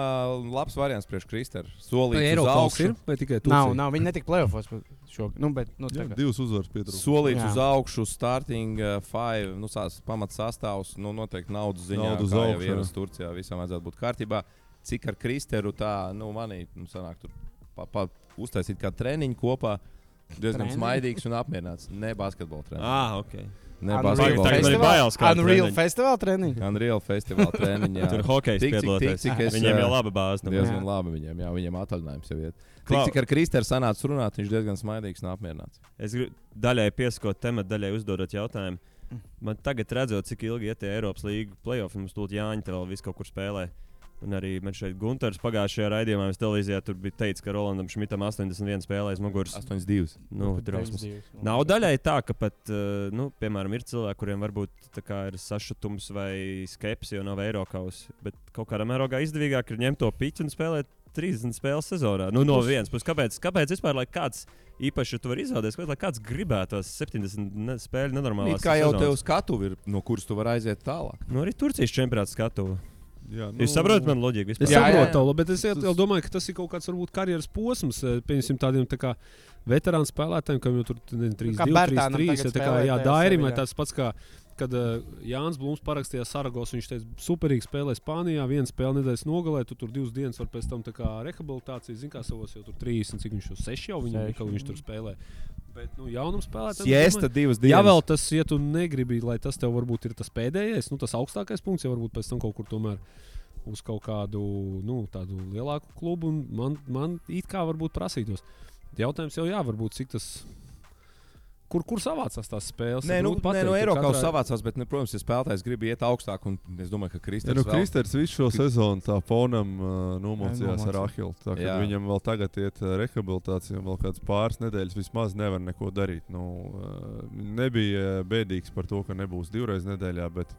labs variants priekš Kristera. Solīts uz augšu. Vai tikai Turcija? Nav, viņi netika playoffos šogad. Divas uzvaras pietrūkst. Solīts uz augšu, starting 5, pamats sastāvs, noteikti naudas ziņā, Naudu uz kā jau augšu, ieras Turcijā, visam vajadzētu būt kārtībā. Cik ar Kristeru tā, manī, sanāk tur uztaisīt kā treniņu kopā, diezgan smaidīgs un apmierināts. Ne basketbola treniņu. Okay. Unreal Festival treniņš. Unreal Festival treniņš, jā. Tur hokejs piedaloties. Viņiem jau laba bāze. Diezgan labi viņiem, jā, viņiem atvaļinājums jau iet. Cik ar Kristeru sanāca runāt, viņš diezgan smaidīgs un apmierināts. Es gribu daļai pieskot tematu, daļai uzdodot jautājumu. Man tagad redzot, cik ilgi iet tie Eiropas līgu play-off, mums tūlīt Jāņa te vēl visu kaut kur spēlē. Un arī man šeit Gunters pagājušajā raidījumā televīzijā tur bija teicis, ka Rolandam Šmitam 81 spēlēs muguras. 82. Drausmas. Nav daļai tā, ka pat, piemēram, ir cilvēki, kuriem varbūt tā kā ir sašutums vai skepsi, jo nav Eirokausa. Bet kaut kādā mērogā izdevīgāk ir ņemt to piķu un spēlēt 30 spēles sezonā. No vienas puses, kāpēc vispār, lai kāds īpaši tu vari izvēlēties, lai kāds gribētos 70 spēļu nenormālās sezonas? Kā jau tev skatuvi ir, no kuras tu vari aiziet tālāk? Arī Turcijas čempionāts skatuvi. Jā, Jūs saprotat man loģiku? Es saprotu, bet es domāju, ka tas ir kaut kāds varbūt karjeras posms, pieņemsim tādiem tā kā veterānu spēlētājiem, kam jau tur 3-2, 3-3, Dairim, vai tas pats kā, kad Jānis Blūms parakstījās Saragos, viņš teica, superīgi spēlē Spānijā, viena spēle nedēļas nogalē, tu tur 2 dienas var pēc tam tā kā rehabilitācija, zin kā savos jau tur 30, cik viņš jau 6 jau viņš tur spēlē. Bet, jaunam spēlētājam. Siesta 2 dienas. Ja vēl tas, ja tu negribi, lai tas tev varbūt ir tas pēdējais, tas augstākais punkts, ja varbūt pēc tam kaut kur tomēr uz kaut kādu, tādu lielāku klubu, un man it kā varbūt prasītos. Jautājums jau varbūt cik tas. Kur savācās tās spēles? Nē, Eiropas savācās, bet, protams, ja spēlētājs grib iet augstāk, un es domāju, ka Kristers Kristers visu šo sezonu tā fonam nomocījās ar Ahilu. Viņam vēl tagad iet rehabilitācija, un vēl kāds pāris nedēļas vismaz nevar neko darīt. Nebija bēdīgs par to, ka nebūs 2 reizes nedēļā, bet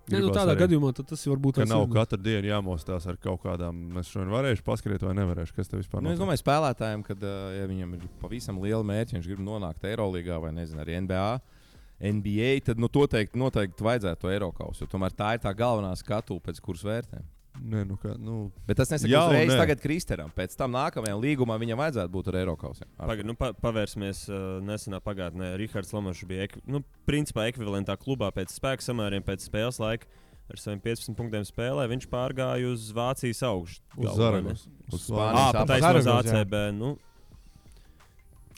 tādā gadījumā tas varbūt nav katru dienu jāmostās ar kaut kādām. Es šodien varēšu paskriet vai nevarēšu. Kas tev vispār notiek? Es domāju, spēlētājiem, kad ja viņam ir pavisam liela mērķa, viņš grib nonākt Eirolīgā vai arī NBA, tad noteikti vajadzētu to Eirokausu, jo tomēr tā ir tā galvenā skatuve, pēc kuras vērtēm. Bet tas nesaka uzreiz tagad Kristeram. Pēc tam nākamajam līgumam viņam vajadzētu būt ar Eirokausiem. Pavērsimies nesenā pagātnē. Rihards Lomašs bija principā ekvivalentā klubā pēc spēka samēriem, pēc spēles laika. Ar saviem 15 punktiem spēlē viņš pārgāja uz Vācijas augšu. Uz Zaragos. Uz Spānijas uz ACB.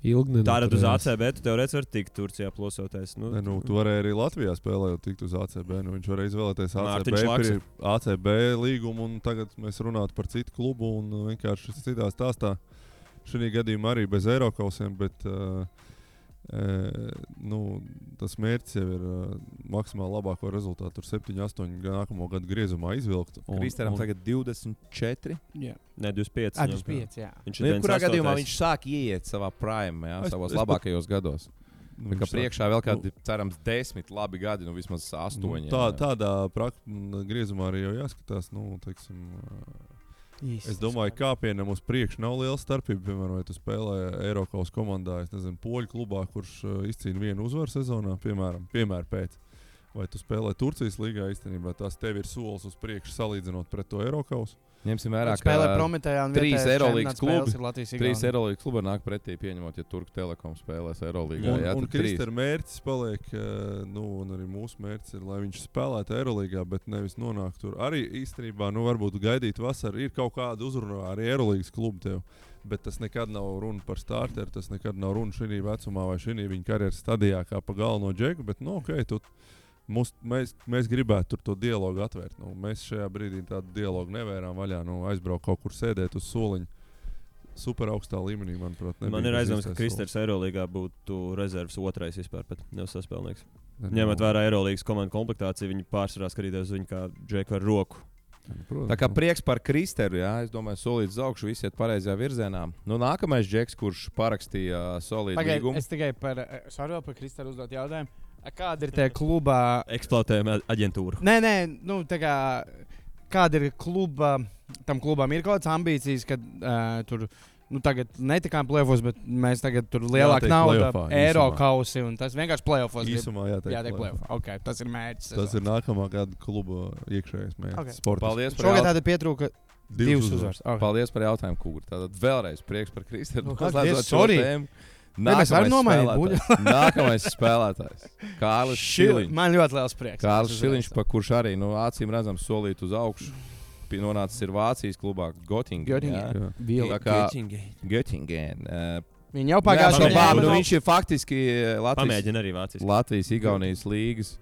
Tātad uz ACB tu teorētiski vari tikt Turcijā plosoties. Tu varēji arī Latvijā spēlēt, tikt uz ACB. Viņš varēja izvēlēties ACB līgumu, un tagad mēs runātu par citu klubu un vienkārši citā stāstā. Šī gadījumā arī bez Eirokausiem, bet tas mērķis jau ir maksimāli labāko rezultātu. Tur 7-8 nākamo gadu griezumā izvilkt. Kristeram tagad 24. Jā. Ne, 25. 25, jā. Kurā gadījumā viņš sāk ieiet savā prime, savos labākajos gados. Kā priekšā vēl kādi, cerams, 10 labi gadi, vismaz 8. Tādā griezumā arī jau jāskatās, Īsti. Es domāju, ka kāpienam uz priekšu nav liela starpība. Piemēram, vai tu spēlē Eiropas komandā, es nezinu, poļu klubā, kurš izcīna vienu uzvaru sezonā, piemēram pēc. Vai tu spēlē Turcijas līgā īstenībā, tas tev ir solis uz priekšu salīdzinot pret to Eiropas. Ņemsim vērā, ka spēlē Prometējā un 3 Eirolīgas klubi. 3 Eirolīgas klubi nāk pretī pieņemot, ja Turku Telekom spēlēs Eirolīgā. Un Kristera mērķis paliek, un arī mūsu mērķis ir, lai viņš spēlētu Eirolīgā, bet nevis nonāk tur. Arī īstenībā, varbūt gaidīt vasaru, ir kaut kāda uzrunā arī Eirolīgas klubu tev. Bet tas nekad nav runa par starteru, tas nekad nav runa šī vecumā vai šī viņa karjeras stadijā kā pa galveno džeku, bet, mēs gribētu tur to dialogu atvērt. Mēs šajā brīdī tādu dialogu nevērām vaļā. Aizbraukt kaut kur sēdēt uz soliņa. Super augstā līmenī, manuprāt. Man ir aizdoms, ka Kristers Eirolīgā būtu rezerves otrais vispār, bet nevis saspēlnieks. Ņemot vērā Eirolīgas komandu komplektāciju, viņi pārsvarā skatīties uz viņu kā džeku ar roku. Tā kā prieks par Kristeru, jā, es domāju, solīts uz augšu, visi iet pareizajā virzienā. Nākamais džeks, kurš parakstīja solītu līgumu. Es tikai par Kristeru uzdot jautājumu. Kāda ir tie klubā? Eksploatējuma aģentūra. Nē, kāda ir tam klubam ir kaut kādas ambīcijas, ka tur tagad netikām play-offos, bet mēs tagad tur lielāka nauda, eiro kausi un tas vienkārši play-offos. Īsumā jātiek play-off. Okay, tas ir mērķis. Tas ir nākamā gada kluba iekšējais mērķis. Okay. Paldies. Šogad tāda pietrūka 2 uzvaras. Okay. Paldies par jautājumu, Kūri. Tātad vēlreiz prieks par Kristeru. Mēs varam nomainīt. Nākamais spēlētājs. Kārlis Šiliņš. Man ļoti liels prieks. Kārlis Šiliņš, kurš arī acīm redzams solīt uz augšu. Nonācis ir Vācijas klubā Göttingen. Viņi jau pagājušajā gadā. Viņš ir faktiski Latvijas Igaunijas līgas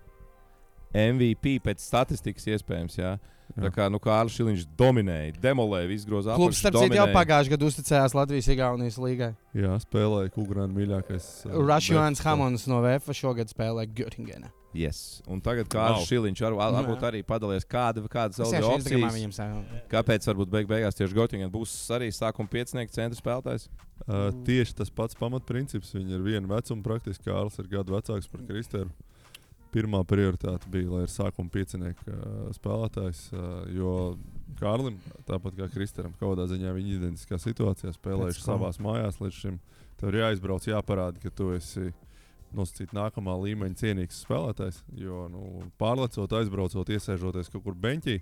MVP pēc statistikas iespējams. Jā. Tā kā Kārlis Šiliņš dominēja, demolēja, izgroza apakšu. Klubs, starp citu, jau pagājušajā gadā uzticējās Latvijas Igaunijas līgai. Jā, spēlēja Kugrāna mīļākais. Rašjons Hamons no VF šogad spēlēja Göttingenā. Yes. Un tagad Kārlis Šiliņš varbūt arī padalījās kādas opcijas. Kāpēc varbūt beigās tieši Göttingen būs arī sākuma piecinieka centra spēlētājs? Tieši tas pats pamatprincips. Viņi ir viena vecuma praktiski. Kārlis ir gadu vecāks par Kristeru. Pirmā prioritāte bija, lai ir sākuma piecinieka spēlētājs, jo Kārlim, tāpat kā Kristeram, kādā ziņā viņa identiskā situācijā spēlējuši savās mājās līdz šim. Tev ir jāizbrauc, jāparāda, ka tu esi nosacīt nākamā līmeņa cienīgs spēlētājs, jo pārlecot, aizbraucot, iesēžoties kaut kur beņķī,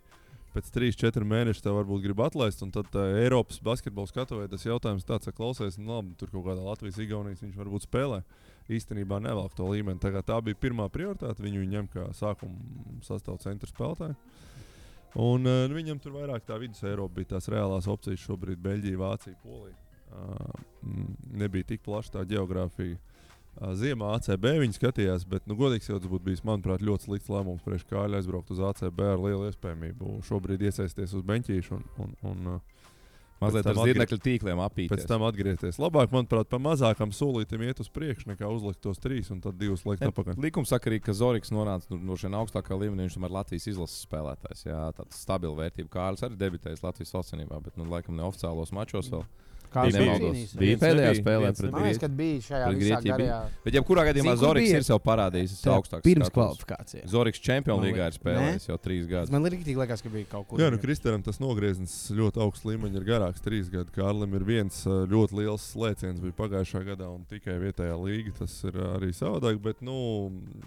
pēc 3-4 mēnešiem tev varbūt grib atlaist, un tad Eiropas basketbola skatuvē tas jautājums tāds, ka klausies, labi, tur kaut kādā Latvijas Igaunijas viņš varbūt spēlē. Īstenībā nevelk to līmeni. Tā bija pirmā prioritāte. Viņu ņem kā sākuma sastāvdaļu centra spēlētāju. Un viņam tur vairāk tā vidus Eiropa bija tās reālās opcijas. Šobrīd Beļģija, Vācija, Polija. Nebija tik plaša tā geogrāfija. Ziemā ACB viņi skatījās, bet, godīgi sakot, tas būtu bijis, manuprāt, ļoti slikts lēmums priekš Kārļa aizbraukt uz ACB ar lielu iespējamību. Šobrīd iesaisties uz beņķīšu un mazliet ar zirnekļu tīkliem apīties. Pēc tam atgriezties. Labāk, manuprāt, pa mazākam solītam iet uz priekšu, nekā uzlikt tos 3 un tad 2 likt apakaļ. Likums saka arī, ka Zoriks nonāca no šiem augstākā līmenī, viņš tomēr Latvijas izlases spēlētājs. Jā, tāds stabila vērtība. Kārlis arī debitējis Latvijas valstsvienībā, bet laikam neoficiālos mačos vēl. Bija pēdējā spēlē pret Grieķiju. Kad bija šajā visā garajā. Bet jebkurā gadījumā Zoriks ir sev parādījis augstāks. Pirms kvalifikācijas. Zoriks Čempionu līgā ir spēlējis jau 3 gadus. Man rīktīgi liekas, ka bija kaut kur. Jā, Kristeram tas nogrieznis ļoti augsts līmeņi ir garāks 3 gadi. Kārlim ir viens ļoti liels slēciens bija pagājušā gadā un tikai vietējā līga. Tas ir arī savādāk, bet,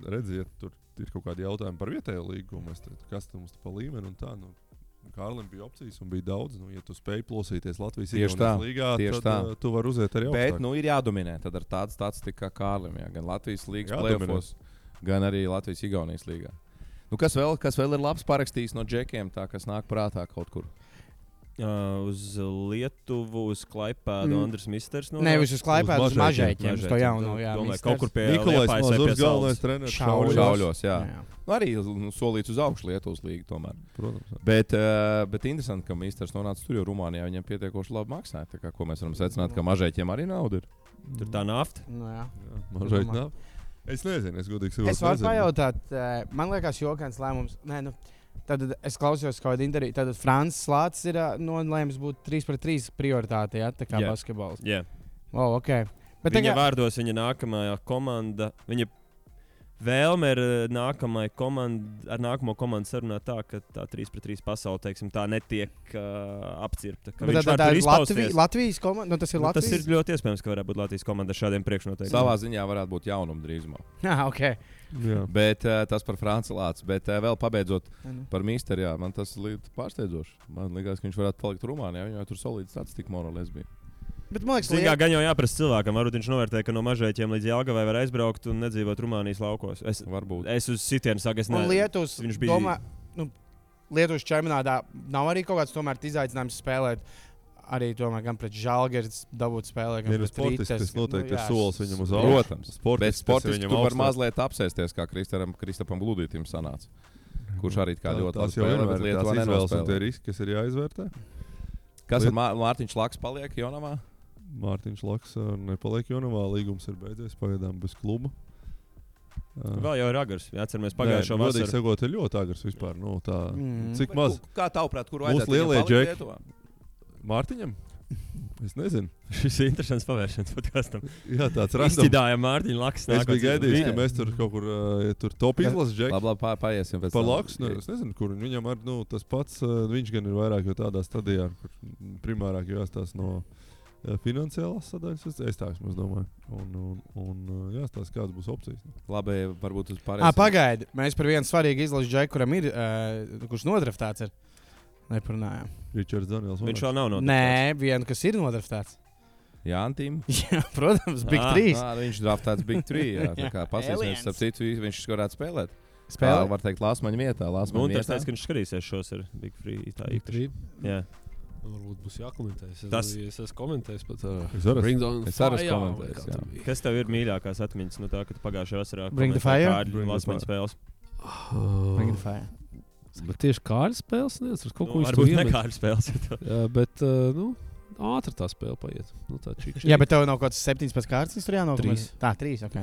redziet, tur ir kaut kādi jautājumi par vietējo līgu. Kas tam mums pa līmeni un tā, Kārlim bija opcijas un bija daudz. Ja tu spēj plosīties Latvijas Igaunijas līgā, tad tu vari uziet arī augstāk. Bet ir jādominē. Tad ar tādu statistiku kā Kārlim. Jā. Gan Latvijas līgas play-offos, gan arī Latvijas Igaunijas līgā. Kas vēl ir labs parakstījis no džekiem, tā, kas nāk prātā kaut kur? Uz Lietuvu, uz Klaipēdu, Andris Misters. Nevis uz Klaipēdu, uz Mažeiķiem. Uz to jauno, jā. Kaut kur pie Nikolais Mazurs, galvenais treneris. Šauļos, jā. Arī solīts uz augšu Lietuvas līgu tomēr. Protams. Bet interesanti, ka Misters nonāca tur, jo Rumānijā viņam pietiekoši labi maksāja. Tā kā, ko mēs varam secināt, ka Mažeiķiem arī nauda ir. Tur tā nafta. Jā. Mažeiķi nafta. Es nezinu, es godīgi sakot. Es varu pajautāt, man liekas jokains lēmums. Tad es klausījos kaut kādu interviju. Tad Francis Lācis ir nolēmis būt 3-3 prioritāte, tā kā basketbols. Jā. Okay. Bet viņa vārdos viņa nākamā komanda. Viņa vēlme ir nākamo komandu sarunāt tā, ka tā 3-3 pasaule, teiksim, tā netiek apcirpta. Bet tā ir Latvijas komanda? Nu, tas ir Latvijas? Tas ir ļoti iespējams, ka varētu būt Latvijas komanda ar šādiem priekšnoteikumiem. Savā ziņā varētu būt jaunuma drīzumā. Ok. Jā. Bet tas par Franci Lācu. Bet vēl pabeidzot par Mīsteru, jā, man tas līdz pārsteidzoši. Man liekas, ka viņš varētu palikt Rumānijā. Viņam tur solīts statistika Morales bija. Bet man liekas, ka gan jau jāprasa cilvēkam. Varbūt viņš novērtē, ka no Mažēķiem līdz Jelgavai var aizbraukt un nedzīvot Rumānijas laukos. Es uz sitienu saku, es nezinu. Lietuvas, viņš bija... Lietuvas čempionātā nav arī kaut kāds tomēr izaicinājums spēlēt. Arī tomēr gan pret Žalgiris dabūt spēlē, gan pret Rītas. Tas noteikti ir solis viņam uz augšu. Protams. Bet sportiski tu var mazliet apsēsties, kā Kristapam Gludītim sanāca. Kurš arī kā ļoti labi spēlē, bet Lietuvā nenospēlē. Tie riski, kas ir jāizvērtē. Kas ar Mārtiņš Laks paliek Jonavā? Mārtiņš Laks nepaliek Jonavā. Līgums ir beidzies pagaidām bez kluba. Vēl jau ir agrs. Atceramies pagājušo vasaru. Godīgi sakot, ir ļoti agrs vispār. Nu, cik maz? Kā tavuprāt, kur vajadzētu viņam palikt Lietuvā? Mārtiņam? Es nezinu. Šis ir interesants pavēršanas podkastam. Jā, tāds random. Izcidājām Mārtiņu Laksu. Es biju gaidījis, ka mēs tur kaut kur tur top izlases džeki. Labi, paiesim pēc tam. Par Laksu, es nezinu, kur viņam ar, tas pats, viņš gan ir vairāk jau tādā stadijā, kur primārāk jāstās no finansiālās sadaļas, es tā vismaz domāju. Un jāstās, kādas būs opcijas. Labi, varbūt uz pārējiem. Pagaidi, mēs par vienu svarīgu izlases džeku, kuram ir, kurš nodraftēts ir. Neparunājām. Ričards Daniels. Viņš vēl nav nodraftēts. Nē, vienu, kas ir nodraftēts. Jā, Antīm. Jā, protams, Big 3. Viņš draftēts Big 3. Jā, tā kā pasīsimies, starp citu, viņš varētu spēlēt. Spēlēt? Var teikt, Lāsmaņa vietā. Un tas teica, ka viņš skatīsies šos ar Big 3. Tā īpaši. Jā. Varbūt būs jākomentē. Tas es esmu komentējis pat. Es arī komentēju. Kas tev ir mīļākās atmiņas no tā, ka tu pagājušajā vasarā Bring the fire? Lāsmaņa spēles? Bring the fire. Bet tieši kāda spēles neatceros. Kaut ko varbūt ne kāda spēles. Jā, bet, ātri tā spēle paiet. Tā jā, bet tev nav kaut kāds 17 kārtas, tur jānāk. 3. Tā, 3, ok.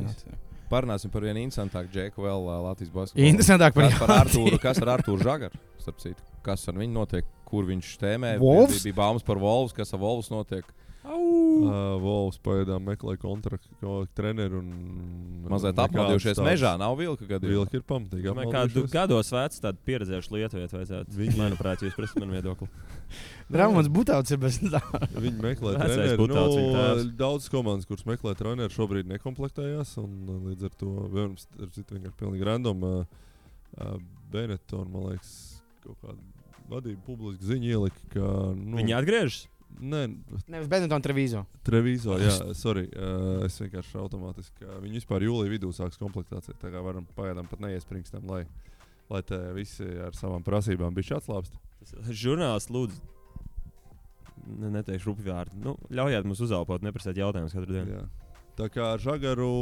Parunāsim par vienu interesantāku džeku vēl Latvijas basketbolā. Interesantāk par Artūru. Kas ar Artūru Žagaru? Starp citu, kas ar viņu notiek? Kur viņš tēmē? Wolves? Bija baumas par Wolves. Kas ar Wolves notiek? Wolves pagaidām meklē kontraktu treneru un mazliet apmaldījušies mežā. Nav vilka gadījumā. Vilka ir pamatīgi apmaldījušies. Gados vecs tādu pieredzējuši lietuvieti vajadzētu. Manuprāt, jūs prasat man viedokli. Ramons Butāts ir bez tā. Viņi meklē treneru. Daudz komandas, kuras meklē treneru, šobrīd nekomplektējās. Un līdz ar to vienkārši pilnīgi random Benetton, man liekas, kaut kāda vadība publiski ziņa ielika, ka... Viņi atgriežas? Nē, nevis Benetton, Treviso. Treviso, jā, sorry. Es vienkārši automātiski, viņi vispār jūlijā vidū sāks komplektāciju. Tā kā varam pagaidām pat neiespringstam, lai te visi ar savām prasībām bišķi atslābst. Žurnālists lūdzu, neteikšu rupi vārdu. Ļaujiet mums uzelpot, neprasēt jautājumus katru dienu. Jā. Tā kā ar Žagaru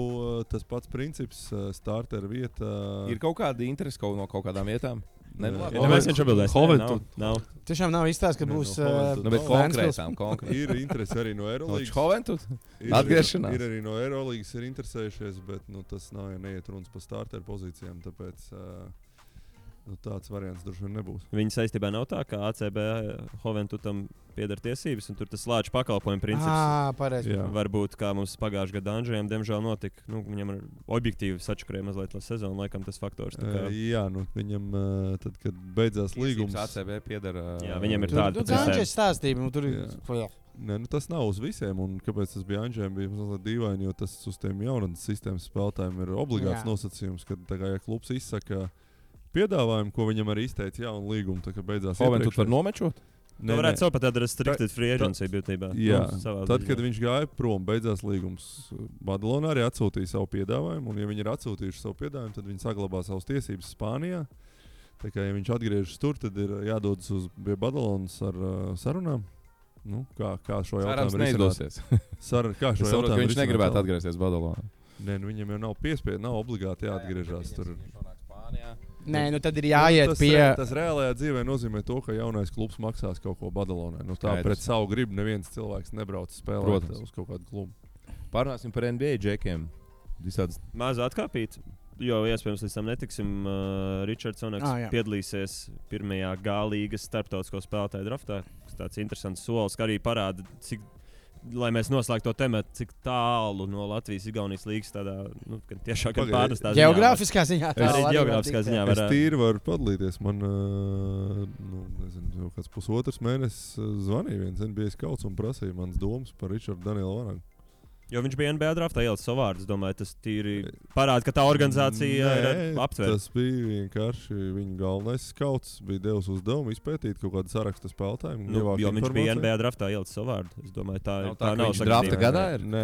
tas pats princips, starter vieta. Ir kaut kāda interese no kaut kādām vietām? Neviens viņš atbildēs. Nav. Tiešām nav izstāsts, ka būs konkrētām. Ir interese arī no Eurolīgas. Hoventud? Atgriešanās. Ir arī no Eurolīgas ir interesējušies, bet tas nav, ja neiet runas par starter pozīcijām, tāpēc tāds variants droši vien nebūs. Viņa saistībā nav tā, ka ACB Hoventudam pieder tiesības, un tur tas slāņu pakalpojumu princips. Pareizi. Varbūt kā mums pagājušajā gadā Andžējam, diemžēl notika. Viņam ir objektīvi sačakarēja mazliet sezonu, laikam tas faktors. Jā, viņam tad, kad beidzās līgums. ACB pieder. Jā, viņam ir tāda. Andžēs stāstība, tur ir. Nē, tas nav uz visiem, un kāpēc tas bija Andžējam, bija mazliet dīvaini, jo tas uz tiem jaunatnes sistēmas spēlētājiem ir obligāts nosacījums, kad ja klubs izsaka piedāvājumu, ko viņam arī izteica jaunu līgumu, tā kā beidzās. Hoventud var nomečot? Nē, varētu savu pat tādu restricted free agency būtībā. Jā, tad, kad viņš gāja prom, beidzās līgums. Badalona arī atsūtīja savu piedāvājumu, un ja viņi ir atsūtījuši savu piedāvājumu, tad viņi saglabā savas tiesības Spānijā. Tā kā, ja viņš atgriežas tur, tad ir jādodas pie Badalonas ar sarunām. Kā šo jautājumu neizdosies. Kā šo jautājumu viņš negribētu atgriezties Badalonā. Nē, viņam jau nav piespiedu, nav obligāti jāatgriežas tur. Nē, tad ir jāiet pie. Tas reālajā dzīvē nozīmē to, ka jaunais klubs maksās kaut ko Badalonai. Tā pret savu gribu neviens cilvēks nebrauc spēlēt uz kaut kādu klubu. Pārnāsim par NBA džekiem. Maz atkāpīt, jo iespējams līdz tam netiksim. Ričards Oneks piedalīsies pirmajā G līgas starptautisko spēlētāju draftā. Tas tāds interesants solis, ka arī parāda, cik lai mēs noslēgtu to tematu, cik tālu no Latvijas-Igaunijas līgas tādā tiešām pārnestā ziņā. Geogrāfiskā ziņā. Arī geogrāfiskā ziņā. Es tīri varu padalīties. Man, nezinu, kāds pusotrs mēnesis zvanīja viens NBA skauts un prasīja manas domas par Richardu Danielu Vanagu. Jo viņš bija NBA draftā ielicis savu vārdu. Es domāju, tas tīri parāda, ka tā organizācija ir aptvērta. Tas bija vienkārši viņa galvenais skauts. Bija devis uzdevumu izpētīt kaut kādu sarakstu spēlētāju. Jo viņš bija NBA draftā ielicis savu vārdu. Es domāju, tā nav drafta gadā.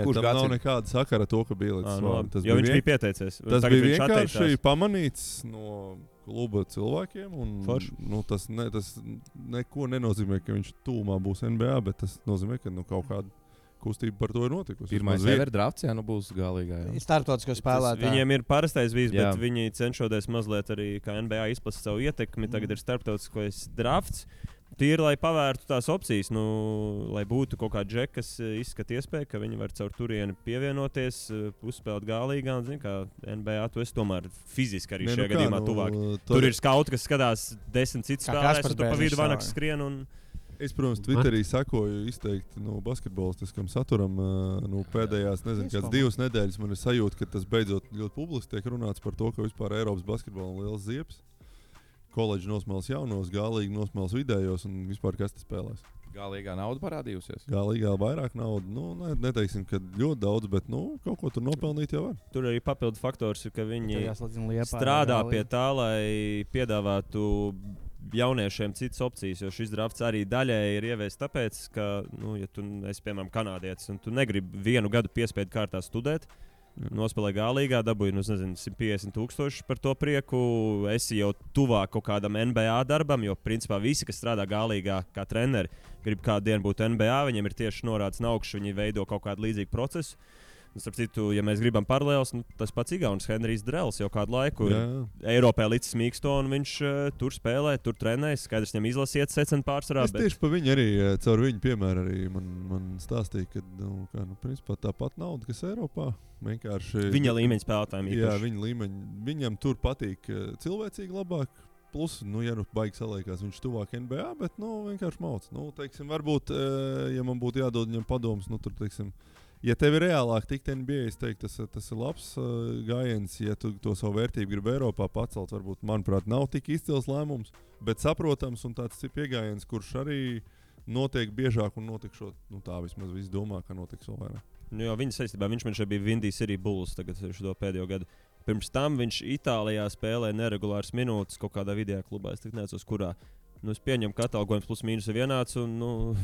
Kurš nav nekāda sakara to, ka bija ielicis savu vārdu. Jo viņš bija pieteicies. Tas bija vienkārši pamanīts no kluba cilvēkiem. Un, tas neko nenozīmē, ka viņš tūmā būs NBA, bet tas nozīmē, ka kaut kāda kustība par to ir notikusi. Pirmais ever drafts, būs galīgā. Startautisko spēlētāju. Viņiem ir parastais bijis, bet viņi cenšoties mazliet arī kā NBA izplatīt savu ietekmi. Tagad ir starptautiskais drafts. Tīri, lai pavērtu tās opcijas, lai būtu kaut kāda džeka, kas izskata iespēju, ka viņi var caur turieni pievienoties, uzspēlēt galīgā. Un, kā NBA, tu esi tomēr fiziski arī šajā gadījumā tuvāk. Tur ir skauti, kas skatās 10 citus spēlētājus, un tu pa vidu Vanaks skrien. Es, protams, Twitterī sakoju izteikti basketbolistiskam saturam. Pēdējās, kādas 2 nedēļas man ir sajūta, ka tas beidzot ļoti publiski tiek runāts par to, ka vispār Eiropas basketbolam ir liels ziepes. Koledži nosmēls jaunos, galīgi nosmēls vidējos un vispār kas te spēlēs. Galīgā nauda parādījusies. Galīgā vairāk naudas. Neteiksim, ka ļoti daudz, bet kaut ko tur nopelnīt jau var. Tur arī papildu faktors ir, ka viņi strādā pie tā, lai piedāvātu jauniešiem citas opcijas, jo šis drafts arī daļēji ir ieviests tāpēc, ka, ja tu esi, piemēram, kanādietis un tu negribi 1 gadu piespiedu kārtā studēt, nospēlē galīgā, dabūji, 150,000 par to prieku, esi jau tuvāk kaut kādam NBA darbam, jo, principā, visi, kas strādā galīgā kā treneri, grib kādu dienu būt NBA, viņiem ir tieši norādes no augšas, viņi veido kaut kādu līdzīgu procesu. Starp citu, ja mēs gribam paralēlus, tas pats Igaunis Henrijs Drells jau kādu laiku Eiropā līdz smīksto, un viņš tur spēlē, tur trenējas. Skaidrs, viņam izlasiet secen pārsvarā. Es tieši pa viņu arī, caur viņu piemēru arī man stāstīja, ka principā tāpat nauda, kas Eiropā. Viņa līmeņa spēlētājiem īpaši. Jā, viņa līmeņa. Viņam tur patīk cilvēcīgi labāk. Plus, ja baigi saliekās, viņš tuvāk NBA, bet vienkārši mauc. Teiksim, varbūt, ja man būtu jādod viņam padomus, tur, teiksim, ja tev ir reālāk tikt NBA, es teiktu, tas ir labs gājiens. Ja tu to savu vērtību gribi Eiropā pacelt, varbūt, manuprāt, nav tik izcils lēmums, bet saprotams un tāds ir pieejams, kurš arī notiek biežāk un notikšot. Tā vismaz visi domā, ka notiks vēl vairāk. Jo viņa saistībā, viņš man šeit bija Windy City Bulls tagad šo pēdējo gadu. Pirms tam viņš Itālijā spēlēja neregulāras minūtes kaut kādā vidējā klubā. Es neatceros, kurā. Es pieņemu, ka atalgojums plus mīnus ir vienāds, un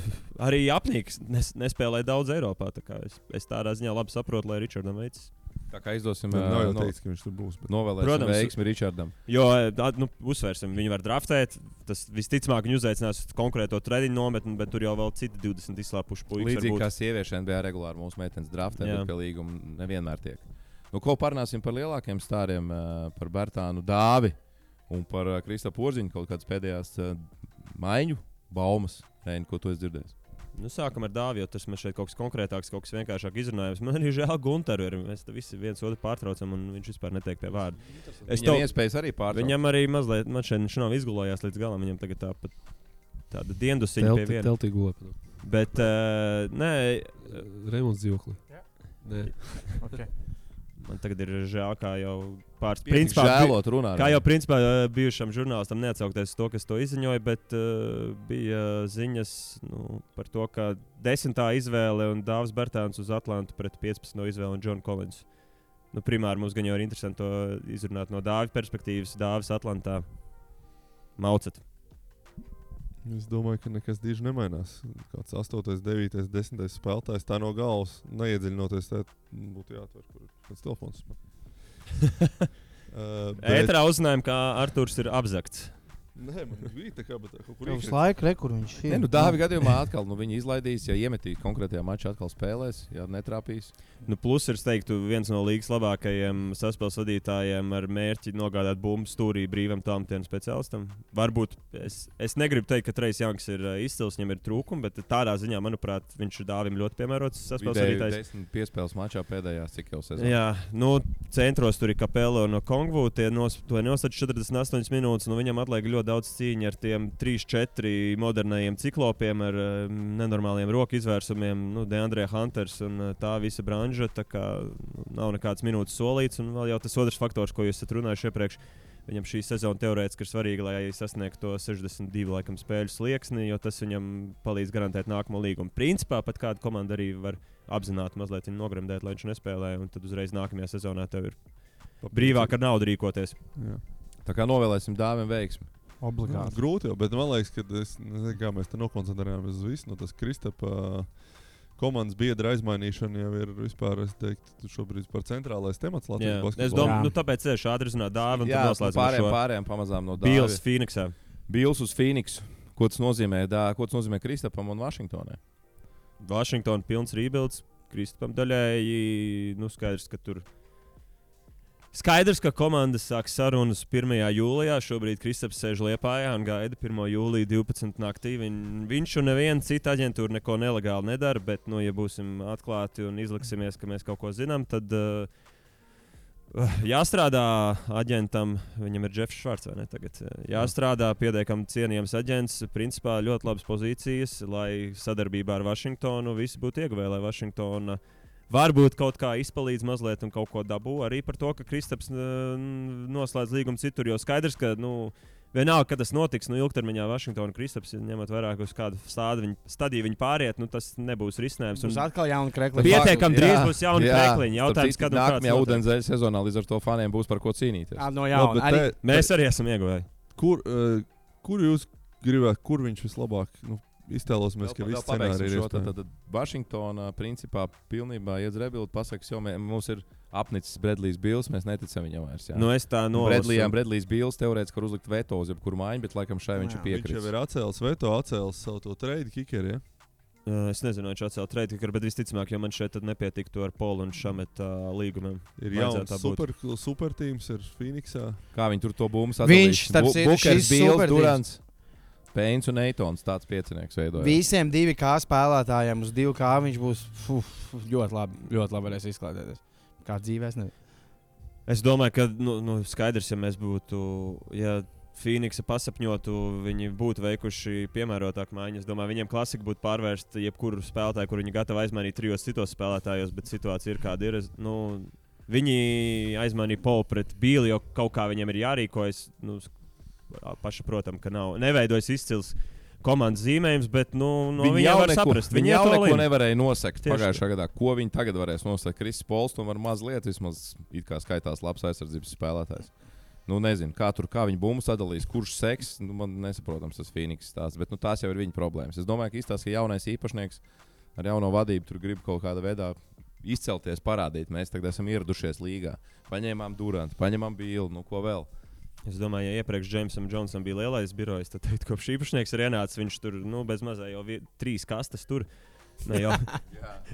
arī apnīks nespēlēja daudz Eiropā. Es tādā ziņā labi saprotu, lai Richardam veicas. Tā kā izdosim, nav jau teiks, ka viņš tur būs. Novēlēsim veiksmi Richardam. Jo, uzsvērsim, viņi var draftēt. Tas visticamāk, viņi uzaicinās konkrēto treniņu nometni, bet tur jau vēl citi 20 izslāpuši puikas. Līdzīgi kā sieviešu NBA regulāri mūsu meitenes draftē, bet pie līguma nevienmēr tiek. Ko parunāsim par lielākiem stāriem, par Bertānu Dāvi un par Kristapu Porziņu, kaut kādas pēdējās maiņu baumas, ko tu esi dzirdējis? Sākam ar Dāvi, jo tas man šeit kaut kas konkrētāks, kaut kas vienkāršāk izrunājams. Man arī žēl Gunteru, mēs visi viens otru pārtraucam, un viņš vispār netiek pie vārda. Viņam iespējas arī pārtraukt. Viņam arī mazliet, man šeit viņš nav izgulējās līdz galam, viņam tagad tāda diendusiņa pie viena. Teltī gulē. Bet, nē. Remonts dzīvokli. Nē. Okay. Man tagad ir žēl, kā jau žēlot runāt. Kā jau principā bijušam žurnālistam neatsaukties to, kas to izziņoja, bet bija ziņas par to, ka 10. izvēle un Dāvis Bertāns uz Atlantu pret 15. izvēli un John Collins. Primāri mums gan jau ir interesanti to izrunāt no Dāvi perspektīvas. Dāvis Atlantā maucat. Es domāju, ka nekas diži nemainās. Kāds 8., 9., 10. spēlētājs tā no galvas neiedziļinoties, tā būtu jāatver, kur ir kāds telefons. Ētrā uzzinājām, ka Arturs ir apzakts. Nē, man bija tā kā, bet kaut kur uz laiku, kur viņš ir. Dāvi gadījumā atkal viņi izlaidīs, ja iemetīs konkrētajā mačā atkal spēlēs, ja netrāpīs. Plus ir, teiktu, viens no līgas labākajiem saspēles vadītājiem ar mērķi nogādāt bumbu stūrī brīvam tālmetienu speciālistam. Varbūt es negribu teikt, ka Trejs Janks ir izcils, viņam ir trūkumi, bet tādā ziņā, manuprāt, viņš ir Dāvim ļoti piemērots saspēles vadītājs. 10 piespēles mačā pēdējās, cik jau sezonā. Jā, centros tur ir Capello no Kongvu, tie nosaka 48 minūtes, un viņam atliek ļoti ļoti daudz cīņa ar tiem 3-4 modernajiem ciklopiem, ar nenormāliem roku izvērsumiem, DeAndre Hunters un tā visa branža. Tā kā nav nekāds minūtes solīts, un vēl jau tas otrs faktors, ko jūs esat runājuši iepriekš. Viņam šī sezona teorētiski ir svarīga, lai sasniegtu to 62 laikam, spēļu slieksni, jo tas viņam palīdz garantēt nākamo līgumu. Principā pat kāda komanda arī var apzināti mazliet viņu nogremdēt, lai viņš nespēlē, un tad uzreiz nākamajā sezonā tev ir brīvāk ar naudu rīkoties. Jā. Tā kā novēlēsim Dāvim veiksmi. Obligāti. Grūti jau, bet man liekas, ka kā mēs te nokoncentrējāmies uz visu, tas Kristapa komandas biedra aizmainīšana jau ir vispār, es teiktu, šobrīd par centrālais temats Latvijas basketbolā. Es domāju, tāpēc es ātri runāju Dāvi un tad noslēdzam šo. Pārējām pamazām no Dāvi. Bills Phoenixā. Bills uz Phoenixu. Ko tas nozīmē Kristapam un Vašingtonai? Vašingtona pilns rebuilds. Kristapam daļēji, skaidrs, ka tur. Skaidrs, ka komandas sāk sarunas 1. jūlijā. Šobrīd Kristaps sēž Liepājā un gaida 1. jūlijā 12. naktī. Viņš un neviena cita aģentūra neko nelegāli nedara, bet, ja būsim atklāti un izliksimies, ka mēs kaut ko zinām, tad jāstrādā aģentam. Viņam ir Jeffs Švarts, vai ne tagad? Jāstrādā pietiekami cienījams aģents. Principā ļoti labas pozīcijas, lai sadarbībā ar Vašingtonu visi būtu ieguvēji, lai Vašingtona varbūt kaut kā izpalīdz mazliet un kaut ko dabū. Arī par to, ka Kristaps noslēdz līgumu citur, jo skaidrs, ka vienalga, kad tas notiks, ilgtermiņā Vašingtona un Kristaps ņemot vairāk uz kādu stadiju viņi pāriet, tas nebūs risinājums. Būs atkal jauni krekliņi. Pietiekami drīz būs jauni krekliņi. Jautājums, kad un kāds nākamajā ūdenszeļa sezonā līdz ar to faniem būs par ko cīnīties. No jauna. Mēs arī esam ieguvēji. Kur jūs gribētu, kur viņš vislabāk iztēlosimies, ka viss scenārija ir tad Vašingtona principā pilnībā iedz rebuild, pasakas, jo mums ir apnicis Bredlijs Bills, mēs neticam viņam vairs. Es tā nolasu. Bredlijs Bills teorētiski var uzlikt veto uz jebkuru maiņu, bet laikam šai viņš ir piekritis. Viņš jau ir atcēlis veto, atcēlis savu to trade kickeru, ja? Es nezinu, viņš atcēla trade kickeru, bet visticamāk, jo man šeit tad nepietiktu ar Polu un Šameta līgumiem. Ir jauns supertīms ir Phoenixā. Kā viņi tur to bumbu sadalīs? Bukers, Bills, Durants. Pēns un Eitons tāds piecinieks veidojas. Visiem 2K spēlētājiem uz 2K viņš būs ļoti labi varēs izklaidēties. Kā dzīvēs nezinu. Es domāju, ka skaidrs, ja mēs būtu, ja Phoenixa pasapņotu, viņi būtu veikuši piemērotāku maiņu. Es domāju, viņiem klasika būtu pārvērst jebkuru spēlētāju, kur viņi gatavi aizmainīt 3 citos spēlētājos, bet situācija ir kāda ir. Viņi aizmainīja Polu pret Bīli, jo kaut kā viņiem ir jārīkojas. Pašsaprotam, ka neveidojas izcils komandas zīmējums, bet viņi jau var saprast. Viņi jau neko nevarēja nosekt pagājušā gadā. Ko viņi tagad varēs nosekt? Kristis Pols tomēr mazliet vismaz it kā skaitās labs aizsardzības spēlētājs. Nezinu, kā viņi bumbu sadalīs, kurš seks. Man nesaprotams tas Phoenix stāsts, bet tās jau ir viņa problēmas. Es domāju, ka izstāsta, ka jaunais īpašnieks ar jauno vadību tur grib kaut kādā veidā izcelties, parādīt. Mēs tagad esam ieradušies līgā. Paņēmām Durantu, paņēmām Bīlu, ko vēl. Es domāju, ja iepriekš Jamesam Džonsam bija lielais birojs, tad kopš īpašnieks ir ienācis, viņš tur bez mazā jau 3 kastes tur.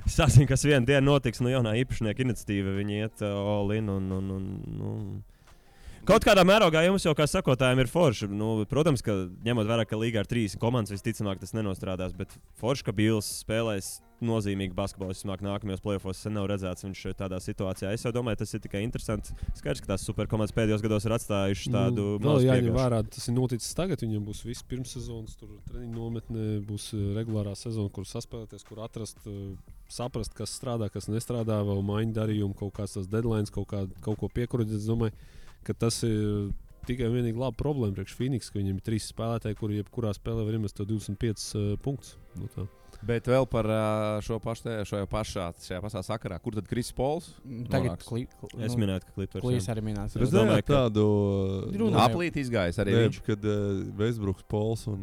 Sāsim, kas vienu dienu notiks, jaunā īpašnieka iniciatīva, viņi iet all in un kaut kādā mērogā jums jau kā sakotājiem ir forši. Protams, ka ņemot vērā, ka līgā ar 3 komandas visticamāk tas nenostrādās, bet forši, ka Bills spēlēs nozīmīgi basketbolu. Vismāk nākamajos playoffos sen nav redzēts viņš tādā situācijā. Es jau domāju, tas ir tikai interesants. Skaidrs, ka tās superkomandas pēdējos gados ir atstājušas tādu mazu jāņem vērā, tas ir noticis tagad. Viņam būs viss pirmssezonas, tur treniņu nometne, būs regulārā sezona, kur saspēlēties, kur atrast, saprast, kas strādā, kas nestrādā, vēl maiņu darījumu, kaut kāds tas deadlines, kaut ko piekurodēt. Es domāju, ka tas ir tikai vienīgi laba problēma priekš Phoenix, ka viņiem ir 3 spēlētāji, kuri jebkurā spēlē var iemest 25 punktus. Bet vēl par šajā pašā sakarā, kur tad Kristis Pols? Tagad es minēju, ka Clippers arī minēts. Es domāju, ka tādu aplīti izgājis arī viņš. Kad Westbrooks, Pols un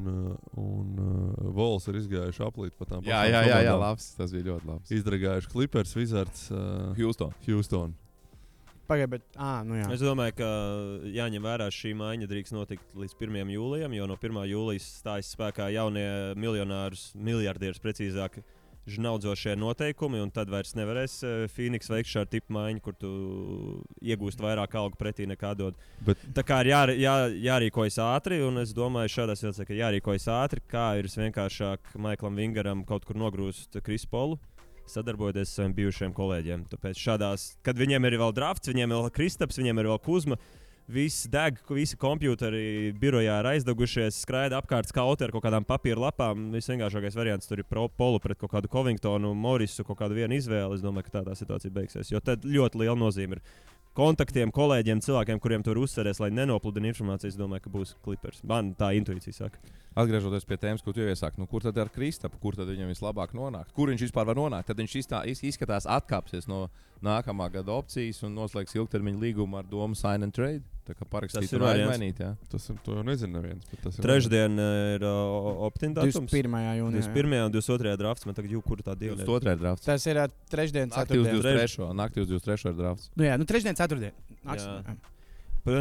Vols ir izgājuši aplīti pa tām pašām komandām. Jā, labs, tas bija ļoti labs. Izdragājuši Clippers, Wizards, Houston. Pagaid, bet, jā. Es domāju, ka jāņem vērā šī maiņa drīkst notikt līdz 1. jūlijam, jo no 1. jūlijas stājas spēkā jaunie miljardieris precīzāk žnaudzošie noteikumi, un tad vairs nevarēs Phoenix veikt šādu tipu maiņu, kur tu iegūst vairāk algu pretī nekā dod. Tā kā ir jārīkojas ātri, un es domāju, šādā situācijā, ka jārīkojas ātri, kā ir vienkāršāk Maiklam Vingaram kaut kur nogrūst Krisu Polu, sadarbojoties ar saviem bijušiem kolēģiem. Tāpēc šādās, kad viņiem ir vēl drafts, viņiem ir vēl Kristaps, viņiem ir vēl Kuzma, Viss deg, visi kompjuteri birojā ir aizdegušies, skraida apkārt skauti ar kaut kādām papīra lapām. Visvienkāršākais variants tur ir polu pret kaut kādu Covingtonu, Morisu, kaut kādu vienu izvēli. Es domāju, ka tā situācija beigsies. Jo tad ļoti liela nozīme ir kontaktiem, kolēģiem, cilvēkiem, kuriem tur uzsveries, lai nenopludina informāciju. Es domāju, ka būs Clippers. Man tā intuīcija saka. Atgriežoties pie tēmas, ko tu jau iesāki, kur tad ar Kristapu, kur tad viņam vislabāk nonākt? Kur viņš vispār var nonākt? Tad viņš izskatās atkāpsies no nākamā gada opcijas un noslēgs ilgtermiņa līgumu ar domu sign and trade. Tā kā parakstīt un aizmainīt, jā. Tas ir, to jau nezinu neviens. Trešdien ir opt-in datums. 21. jūnijā. 21. un 22. drafts. Man tagad kura tā diena ir? 22. drafts. Tas ir trešdien, Naktī uz ceturtdien. 23. Naktī uz 23. ir drafts. Nu jā, trešdien, ceturtdien.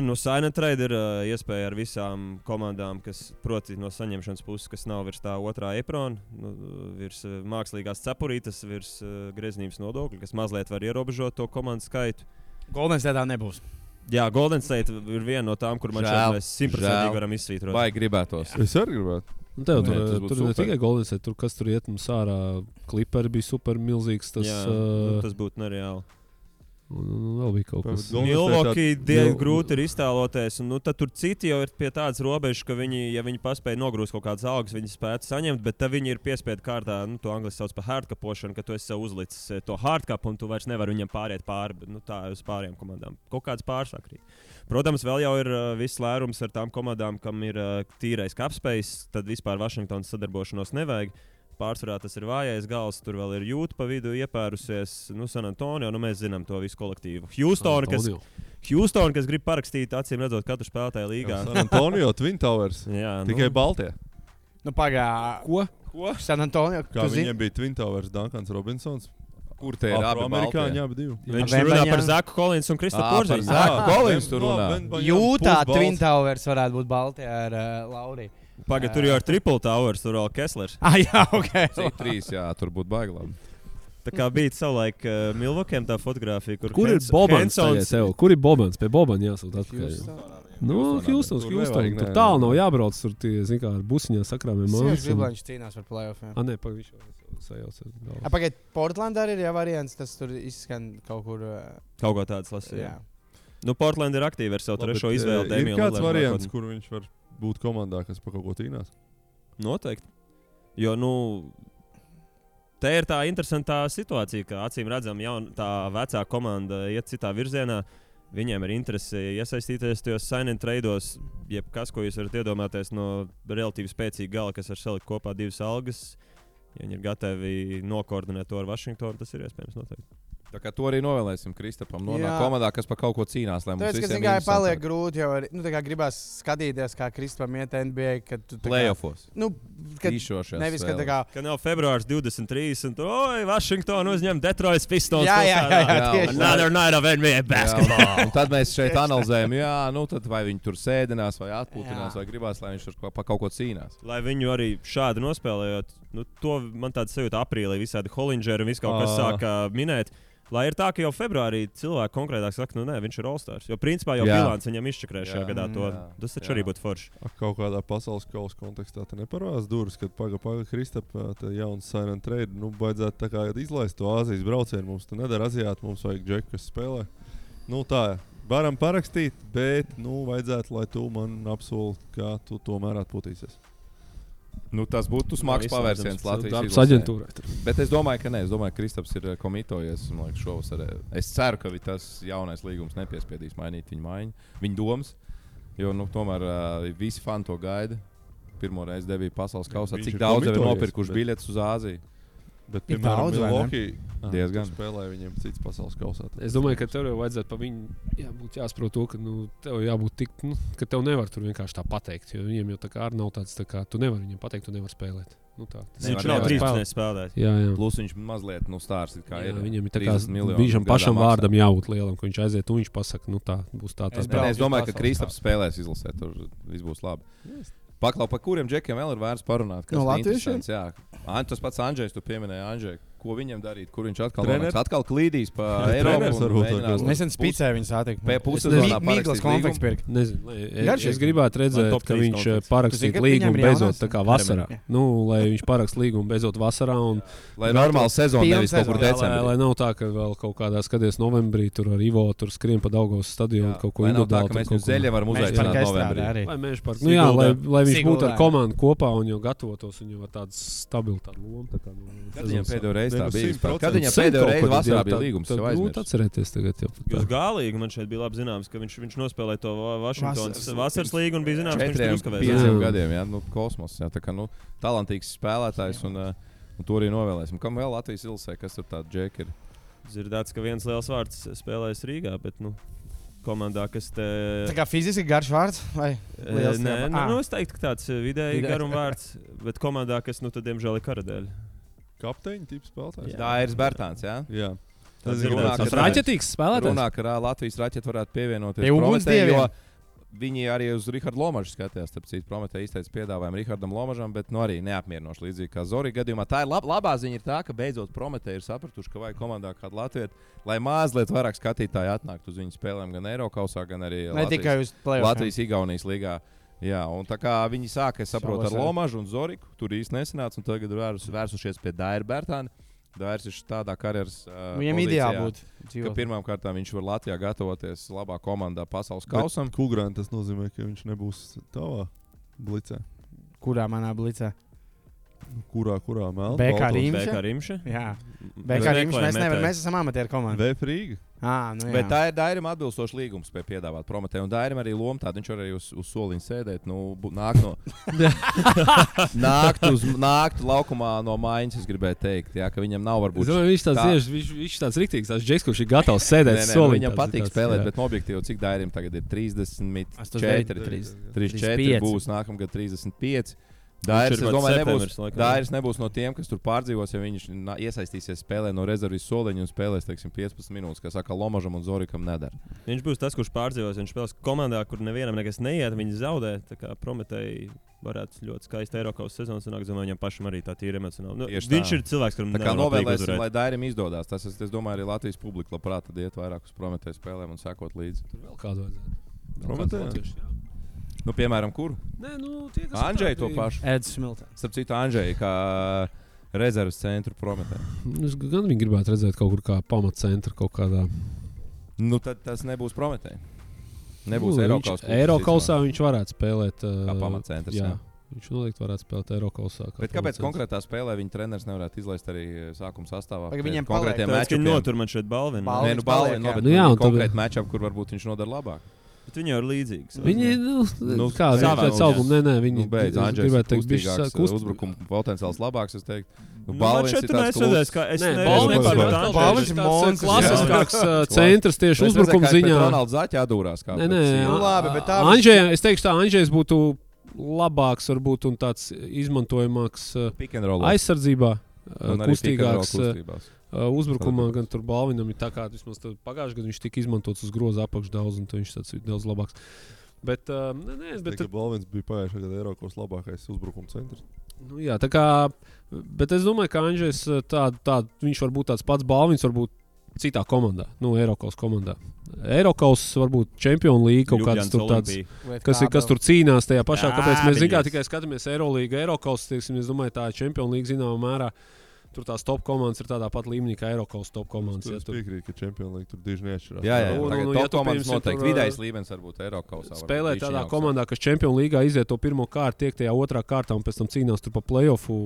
Nu, sign and trade ir iespēja ar visām komandām, kas proti no saņemšanas puses, kas nav virs tā otrā aprona, virs mākslīgās cepurītes, virs greznības nodokļa, kas mazliet var ierobežot to komandu skaitu. Golden State nebūs. Jā, Golden State ir viena no tām, kur man šeit mēs 100% varam izsvītrot. Vai gribētos? Es arī gribētu. Tev Nē, tas būtu tur ne super. tikai Golden State, tur kas tur iet mums ārā. Clipperi bija super milzīgs. Tas, Jā, tas būtu nereāli. un vēl bija kaut kas. Milwaukee grūti ir iztēloties, un tad tur citi jau ir pie tādas robežas, ka viņi, ja viņi paspēja nogrūst kaut kādas algas, viņi spētu saņemt, bet tad viņi ir piespiedu kārtā, to angliski sauc par hardcapošanu, ka tu esi sev uzlicis to hardcapu un tu vairs nevari viņam pāriet pāri, bet tā uz pārējām komandām. Kaut kāds pārsakrīt. Protams, vēl jau ir viss lērums ar tām komandām, kam ir tīrais capspace, tad vispār Vašingtonas sadarbošanos nevajag. Pārsvarā tas ir vājais gals, tur vēl ir Jūta pa vidu iepērusies, San Antonio, mēs zinām to visu kolektīvu. Houston, kas grib parakstīt, acīm redzot, katru spēlētāju līgā. San Antonio, Twin Towers. Jā, Tikai Baltie. Ko? San Antonio. Kā viņiem bija Twin Towers, Duncans Robinsons. Kur te ir abi amerikāņi, abi divi. Viņš runā par Zaku Kollinsu un Kristofu Porziņu. Zaku Kollins tur runā. Jūtā Twin Towers varētu būt Baltijā ar Lauriju. Pagad, tur jau ir Triple Towers, tur vēl Kesslers. Jā, ok. C3, jā, tur būtu baiglabi. Tā kā bija savulaik Milwaukee tā fotografija, Kur ir Bobans? Kur ir Bobans? Pie Bobana jāsūt atpakaļ. Houston. Tur tālu nav jābrauc, tur tie, zin kā, ar busiņā sakrāmiem mājas. Viņš cīnās par playoffiem. Nē, viņš jau sajauca. Pagaid, Portlandā ir variants, tas tur izskan kaut kur. Kaut kā tāds lasīja. Portland ir aktīvi ar savu trešo izvēli. Ir kāds variants, kur viņš var būt komandā, kas par kaut ko cīnās? Noteikti. Jo, te ir tā interesantā situācija, ka acīm redzam, tā vecā komanda iet citā virzienā. Viņiem ir interese iesaistīties tajos sign and tradeos, jebkas, ko jūs varat iedomāties no relatīvi spēcīga gala, kas var salikt kopā divas algas. Ja viņi ir gatavi nokoordinēt to ar Vašingtonu, tas ir iespējams noteikti. Tā kā to arī novēlēsim Kristapam. Nonāk komandā, kas par kaut ko cīnās. Tas, kas tikai paliek grūti, jo gribās skatīties, kā Kristapam iet NBA, kad tu playoffs. Tīšošies. Nevis, ka tā kā... Kad nav februārs 23 un tu, Vašingtonu uzņem Detroit Pistons. Jā, another night of NBA basketball. Un tad mēs šeit analizējam, tad vai viņi tur sēdinās vai atpūtinās, vai gribās, lai viņš tur par kaut ko cīnās. Lai viņu arī šādi nospēlējot, to man tāda sajūta aprīlī visādi Hollingeri un viss kaut kas sāka minēt. Lai ir tā, ka jau februārī cilvēki konkrētāk saka, nē, viņš ir All-Stars. Jo principā jau bilants viņam izčakrē šajā gadā to. Tas taču arī būtu forši. Kaut kādā pasaules kausa kontekstā te neparādās durvis, kad paga Kristapa jauns sign and trade. Vajadzētu tā kā izlaist to Āzijas braucienu. Mums te nedara aziāti, mums vajag džeku, kas spēlē. Tā, varam parakstīt, bet vajadzētu, lai tu man apsoli, kā tu tomēr atpūtīsies. Tas būtu smags pavērsiens Latvijas aģentūrai. Bet es domāju, ka nē. Es domāju, ka Kristaps ir komitojies. Šovasar. Es ceru, ka tas jaunais līgums nepiespiedīs mainīt viņa domas. Jo tomēr visi fani to gaida. Pirmo reizi debija pasaules kausā. Cik daudz jau ir nopirkuši biļetes uz Āziju? Bet, piemēram, Milwaukee diezgan spēlēja viņiem cits pasaules kausā. Es domāju, ka tev jau vajadzētu pa viņu jāsaprot to, ka tev jābūt tik, ka tev nevar tur vienkārši tā pateikt. Jo viņiem jau tā kā arī nav tāds, tā kā tu nevari viņiem pateikt, tu nevari spēlēt. Viņš nav 13 spēlēt. Jā. Plus viņš mazliet stārs kā ir. Viņam ir tā kā viņam pašam vārdam jābūt lielam, ka viņš aiziet un viņš pasaka, tā būs tā spēlē. Es domāju, ka Kristaps spēlēs izlasē, tur viss būs labi. Paklau, par kuriem džekiem vēl ir vērts parunāt? No latviešiem? Jā. Tas pats Andžejs, tu pieminēji Andžeju. ko viņam darīt, kur viņš atkal Treneris? nonāks. Atkal klīdīs pa Treneris Eiropu. varbūt Mēģinās Nesen spīcē viņu satikt. pussezonā Mīglas konflikts pirkt. Nezinu, Garšīgi. es gribētu redzēt, top ka trīs viņš konflikts. Tu parakstītu zini, ka līgumu viņam ir beidzot jaunās? tā kā vasarā. Jā. Nu, lai viņš parakst līgumu beidzot vasarā. Un, Lai normāli sezona Pilna nevis kaut kur sezona. decembrī. lai nav tā, ka vēl kaut kādā skaties novembrī tur ar Ivo tur skrien pa Daugavas stadionu kaut ko Lai nav tā, individuāli. ka tur mēs kaut viņu ko- zeļa varam Mēs uzaicināt par novembrī. arī. Vai Meža parka. Nu, jā, lai viņš būtu Siguldā. ar komandu kopā un jau gatavotos un jau ar tādu stabilu tādu lomu. Tā kā, Kad viņam pēdējo reizi tā Ne, nu, bija? 100%. Kad viņam pēdējo reizi vasarā bija līgums? Jau Grūti aizmirst. atcerēties tagad. Jau, Uz galīgi man šeit bija labi zināms, ka viņš nospēlēja to Vašingtonas vasaras līgu un bija zināms, ka viņš tur 4, uzkavēs. 5 Jā. gadiem, jā, nu, kosmos. Jā, tā kā, nu, talantīgs spēlētājs un to arī novēlēsim. Kam vēl Latvijas ilsē, kas tur tādi džeki ir? Dzirdēts, ka viens liels vārds spēlējas Rīgā, bet nu, komandā, kas te. Tā kā fiziski garš vārds? Vai liels Nē, tiepā? nu, es teiktu, ka tāds vidēji Vidējs. garums vārds, bet komandā, kas, nu, tad, diemžēl, ir karadēļ. Kapteiņa tips spēlētājs. Dairis Bērtāns, jā. Jā. Tas Tas ir ir runā, tāds ka- Raķetīgs spēlētājs. Runā, ka Latvijas raķete varētu pievienoties Pie ugunsdieviem. jo viņi arī uz Rihardu Lomažu skatījās. Tāpēc Prometē izteica piedāvājumu Rihardam Lomažam, bet nu, arī neapmierinoši līdzīgi kā Zorī gadījumā. Tā ir labā ziņa, ir tā, ka beidzot Prometē ir sapratuši, ka vajag komandā kādu Latviju, lai mazliet vairāk skatītāji atnāktu uz viņu spēlēm gan Eirokausā, gan arī Ne tikai uz play-offiem. Latvijas-Igaunijas līgā. Jā, un tā kā viņi sāka, es saprotu, ar Savas, jā. Lomažu un Zoriku, tur īsti nesanāca, un tagad ir vērsušies pie Daira Bērtāna. Dairis ir tādā karjeras Viņam pozīcijā, ideāli būtu. ka dzīvot. pirmām kārtām viņš var Latvijā gatavoties labā komandā pasaules kausam. Kugrāna tas nozīmē, ka viņš nebūs tavā blicē. Kurā manā blicē? Kurā melnā? BK Rīga. BK Rimša. Jā, BK Rīgas mēs nevaram. Mēs esam amatieru komanda. VF Rīga. Nu jā. Bet tā ir Dairim atbilstoši līgums, spēja piedāvāt Prometē. Un Dairim arī loma tāda, viņš var arī uz soliņa sēdēt. Nu, nākt laukumā no mājas, es gribēju teikt. Jā, ka viņam nav Es varbūt. domāju, viņš tāds tā- tieši, viņš tāds riktīgs, tāds džeks, kurš ir gatavs sēdēt Nē, solī. viņam patīk spēlēt, bet objektīvi, cik Dairim tagad ir 34, 34 35. būs nākamgad 35. Dairis, es ir domāju, septembris, laikam. Dairis nebūs no tiem, kas tur pārdzīvos, ja viņš iesaistīsies spēlē no rezerves soliņa un spēlēs, teiksim, 15 minūtes, kā saka Lomažam un Zorikam nedara. Viņš būs tas, kurš pārdzīvos. Viņš spēlēs komandā, kur nevienam nekas neiet. Viņi zaudē. Tā kā Prometēji varētu ļoti skaisti Eiropas sezonas sanākt. Domāju, viņam pašam arī tā tīra emocionāli. Nu, Tieši tā. viņš ir cilvēks, kuram Tā kā nevar patīk novēlēsim, uzvarēt. lai Dairim izdodas. Tas, es domāju, arī Latvijas publika labprāt iet vairāk uz Prometēju spēlēm un sekot līdzi. Tur vēl kādu vajadzētu. Vēl Prometējā? kāds latviešu, jā. Nu, piemēram, kuru? Nē, nu, tie, kas Andžēju to apkārt, pašu. Edis Smiltons. Starp citu, Andžēju kā rezerves centru Prometēju. Es gan viņu gribētu redzēt kaut kur kā pamatcentra kaut kādā. Nu, tad tas nebūs Prometēji. Nebūs Nu, Eiropas Eirokausā viņš varētu spēlēt. Kā pamatcentrs, jā. Viņš noteikti varētu spēlēt Eirokausā. Bet kāpēc konkrētā spēlē viņa treneris nevarētu izlaist arī sākuma sastāvā? Vai viņiem konkrētiem Tāpēc, ka viņi matchupiem? notur man šeit balvinu. Balvi. Nē, nu, balvi, no, bet Nu jā, un tad- konkrēti matchup, kur varbūt viņš nodara labāk. Bet viņi jau ir līdzīgi. Viņi, Nu, kā savā pēc ziņā. auguma, nē, viņi Nu, beidz, es Andžejs gribētu ir teikt, bišķi kustīgāks, uzbrukuma potenciāls labāks, es teiktu. Nu, Man Balvins šeit ir tur tāds nesredzēs, kā es Nē, nevaru Balvins vispār ir par atkal Andžeju. Balvins tāds ir monstrs, klasiskāks centrs tieši uzbrukuma ziņā. Ronalds Zaķa atdūrās kā. Nē, nē, Nu, labi, bet tā Andžejs, es teikšu, tā Andžejs būtu labāks, varbūt, un tāds izmantojamāks Pick and roll. aizsardzībā, Un arī pick and roll kustīgāks. kustībās. Uzbrukumā gan tur Balvinam ir tā kā vismaz pagājušajā gadā viņš tika izmantots uz groza apakšā daudz, un tad viņš tāds ir daudz labāks. Bet, nē, bet Balvins bija pagājušajā gadā Eiropas labākais uzbrukuma centrs. nu, jā, tā kā, bet es domāju, ka Andžejs viņš var būt tāds pats Balvins, varbūt citā komandā, Eiropas komandā. Eiropas varbūt Champions League kaut kāds tur tāds. Kas tur cīnās tajā pašā, Jā, kāpēc mēs zinām, viņas. tikai skatāmies Eirolīgu, Eiropas, teiksim, es domāju, tā Champions League zināmā mērā. Tur tās top komandas ir tādā pat līmenī kā Eiropas top komandas. Es piekrītu, ka Champions League tur diži neatšķirās. Jā, jā, Un- tagad un, top ja tu, komandas piemēram, noteikti. tur, Vidējais līmenis varbūt Eiropas. Spēlē tādā komandā, kas Champions League iziet to pirmo kārtu, tiek tajā otrā kārtā un pēc tam cīnās tur pa playoffu.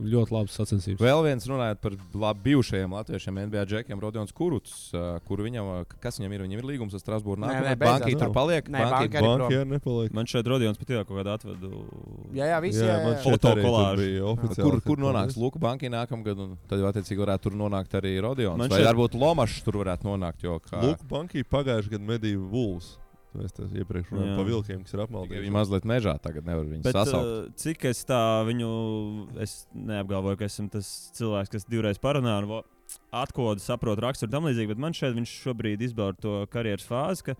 Ļoti labas sacensības. Vēl viens runājot par bijušajiem latviešiem NBA džekiem, Rodions Kuruts, kur viņam, kas viņam ir? Viņam ir līgums ar Strasbūru Nē, nākamajā. beidzās. Banki tur paliek. Nē, Banki- banka arī Banki arī nepaliek. Man šeit Rodions pat jau kaut kādā atvedu. Jā, visi. Man šeit Foto arī tur kolāžu. bija oficiāli. Kur nonāks Luka Banki nākamgad? Un tad jau attiecīgi varētu tur nonākt arī Rodions. Man Vai šeit- varbūt Lomašs tur varētu nonākt? Jo kā Luka Banki pagājušajā gadā medīja Wolves. Mēs tas iepriekš runājām Jā. par vilkiem, kas ir tikai apmaldījuši. viņi mazliet mežā tagad nevar viņus Bet, sasaukt. cik es tā viņu, es neapgalvoju, ka esmu tas cilvēks, kas divreiz parunā un atkodu saprotu raksturu tam līdzīgi, bet man šeit viņš šobrīd izbauda to karjeras fāzi, ka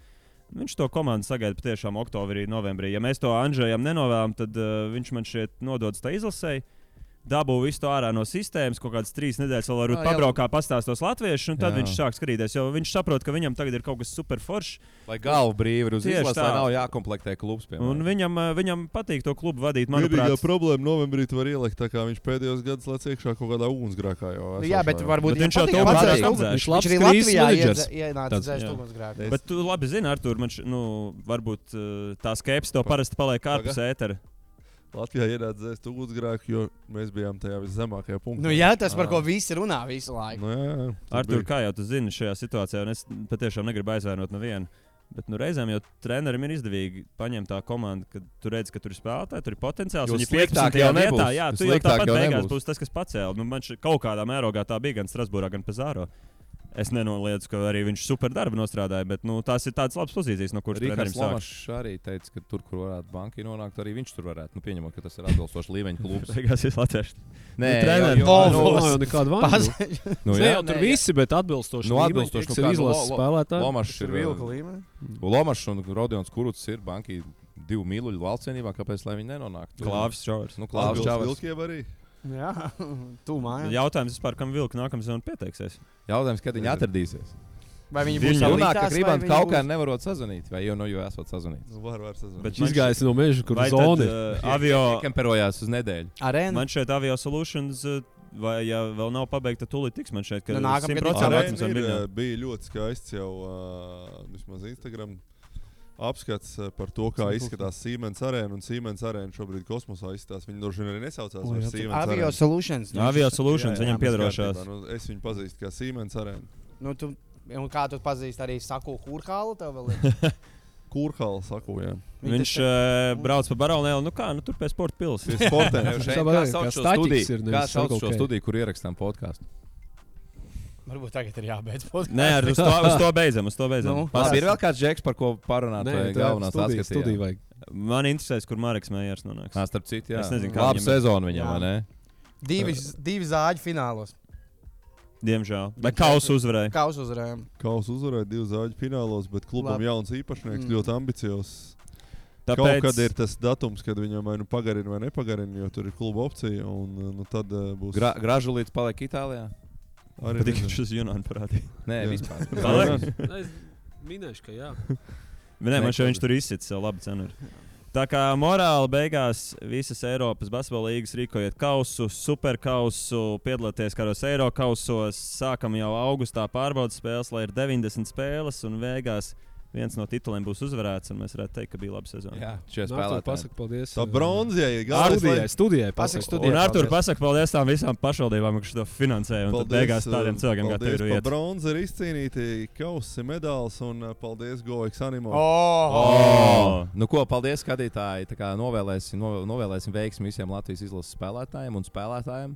viņš to komandu sagaida patiešām oktobrī, novembrī. Ja mēs to Andžejam nenovēlam, tad viņš man šeit nododas tā izlasēji. dabū visu to ārā no sistēmas, kaut kādas 3 nedēļas vēl varbūt pabraukā, pastāstos latviešu, un tad viņš sāk skatīties, jo viņš saprot, ka viņam tagad ir kaut kas super foršs. Lai galva brīvi ir uz izlases, lai nav jākomplektē klubs. Piemēram. Un viņam patīk to klubu vadīt, manuprāt. Vienīgā problēma novembrī tu var ielikt, tā kā viņš pēdējos gados lec iekšā kaut kādā ugunsgrēkā. Jā, bet varbūt viņš jau to patīk. Viņš arī Latvijā ienāca dzēst ugunsgrēku. Bet tu labi zini, Artur, varbūt tā skepse to parasti paliek ārpus ētera. Latvijā ienāca dzēst ugunsgrēku, jo mēs bijām tajā viszemākajā punktā. Jā, tas par ko visi runā visu laiku. Jā. Artur, kā jau tu zini šajā situācijā, un es patiešām negribu aizvainot nevienu. Bet reizēm jau trenerim ir izdevīgi paņemt tā komanda, kad tu redz, ka tur ir spēlētāji, tur ir potenciāls. Viņi 15. jau vietā, jā, tu jau tāpat beigās nebūs. būs tas, kas pacēla. Man kaut kādā mērogā tā bija gan Strasbūrā, gan Pezāro. Es nenoliedzu, ka arī viņš super darbu nostrādāja, bet tās ir tādas labas pozīcijas, no kuras trenerim sāk. Lomašs arī teica, ka tur, kur varētu banki nonākt, arī viņš tur varētu. Pieņemot, ka tas ir atbilstošs līmeņa klubs. Beigās ir latvieši. Nē, nav nekāda vaina. Jā, tur visi, bet atbilstoši atbilstoši ir izlases spēlētāji. Lomašs ir vilka līmenī. Lomašs un Rodions Kurucs ir banki 2 mīluļu valstsienībā, kāpēc lai viņi nenonāktu? Klāvis Čavars. Klāvis Čavars. Vilkiem arī. Jā, tu mājās. Jautājums vispār, kam vilka nākamā sezona pieteiksies? Jautājums, kad viņi atradīsies. Vai viņi būs runā, ka gribam kaut kā nevarot sazvanīt, vai jau esat sazvanīts? Var sazvanīt. Bet izgājis no meža, kur zona avio kemperojās uz nedēļu. Arēna. Man šeit Avio Solutions, vai ja vēl nav pabeigta, tūlīt tiks man šeit, ka nākamgad 100% bija ļoti skaists jau vismaz Instagram apskats par to, kā izskatās Siemens arēna, un Siemens arēna šobrīd kosmosā izskatās. Viņi droši vien arī nesaucās par Siemens arēnu. Avio Solutions. Avio Solutions, viņam piedarošās. Es viņu pazīstu kā Siemens arēnu. Un kā tu pazīsti arī Saku Kurhālu? Kurhālu Saku, jā. Viņš brauc pa Baronēlu, tur pie sporta pils. Pie sportiem. Kā sauc šo studiju, kur ierakstām podkāstu? Varbūt tagad ir jābeidz podkāsts. Nē, uz to beidzam. Ir vēl kāds džeks, par ko parunāt, vai galvenās studiju vajag. Man interesēs, kur Mareks Mējers nonāks. Starp citu, jā. Es nezinu, kā labu sezonu viņam, vai ne? Divi zāģi finālos. Diemžēl. Bet Kausu uzvarēja. Kausu uzvarēja 2 zāģu finālos, bet klubam jauns īpašnieks, ļoti ambiciozs. Tāpēc... Kaut kad ir tas datums, kad viņam vai pagarina vai nepagarina, jo tur ir kluba opcija, un tad būs... Gražulīts paliek Itālijā? Arī viņš uz Junānu parādīja. Nē, vispār. Es minēšu, ka jā. Nē, man šeit viņš tur izsits savu labu cenu. Tā kā morāli beigās visas Eiropas basketbola līgas rīkojiet kausu, superkausu, piedalieties kādos Eirokausos, sākam jau augustā pārbaudas spēles, lai ir 90 spēles un beigās viens no tituliem būs uzvarēts, un mēs varētu teikt, ka bija laba sezona. Jā, šie spēlētāji. Pasaka paldies. Tā bronzija ir studijai. Un Artur, pasaka paldies tām visām pašvaldībām, kas to finansēja, un tad beigās tādiem cilvēkiem kā tev ir iet. Bronzi ir izcīnīti kausi, medāls, un paldies GoX Animo. Nu ko, paldies skatītāji, tā kā novēlēsim veiksmi visiem Latvijas izlases spēlētājiem un spēlētājiem.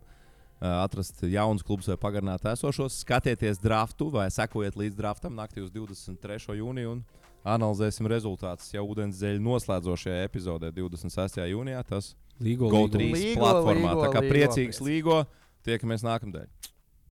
Atrast jaunus klubus vai pagarināt esošos, skatieties draftu vai sekojiet līdz draftam naktī uz 23. jūniju un analizēsim rezultātus jau ūdensdzeļu noslēdzošajā epizodē 26. jūnijā. Tas Līgo GO3 platformā. Tā kā priecīgs Līgo, tiekamies nākamdēļ.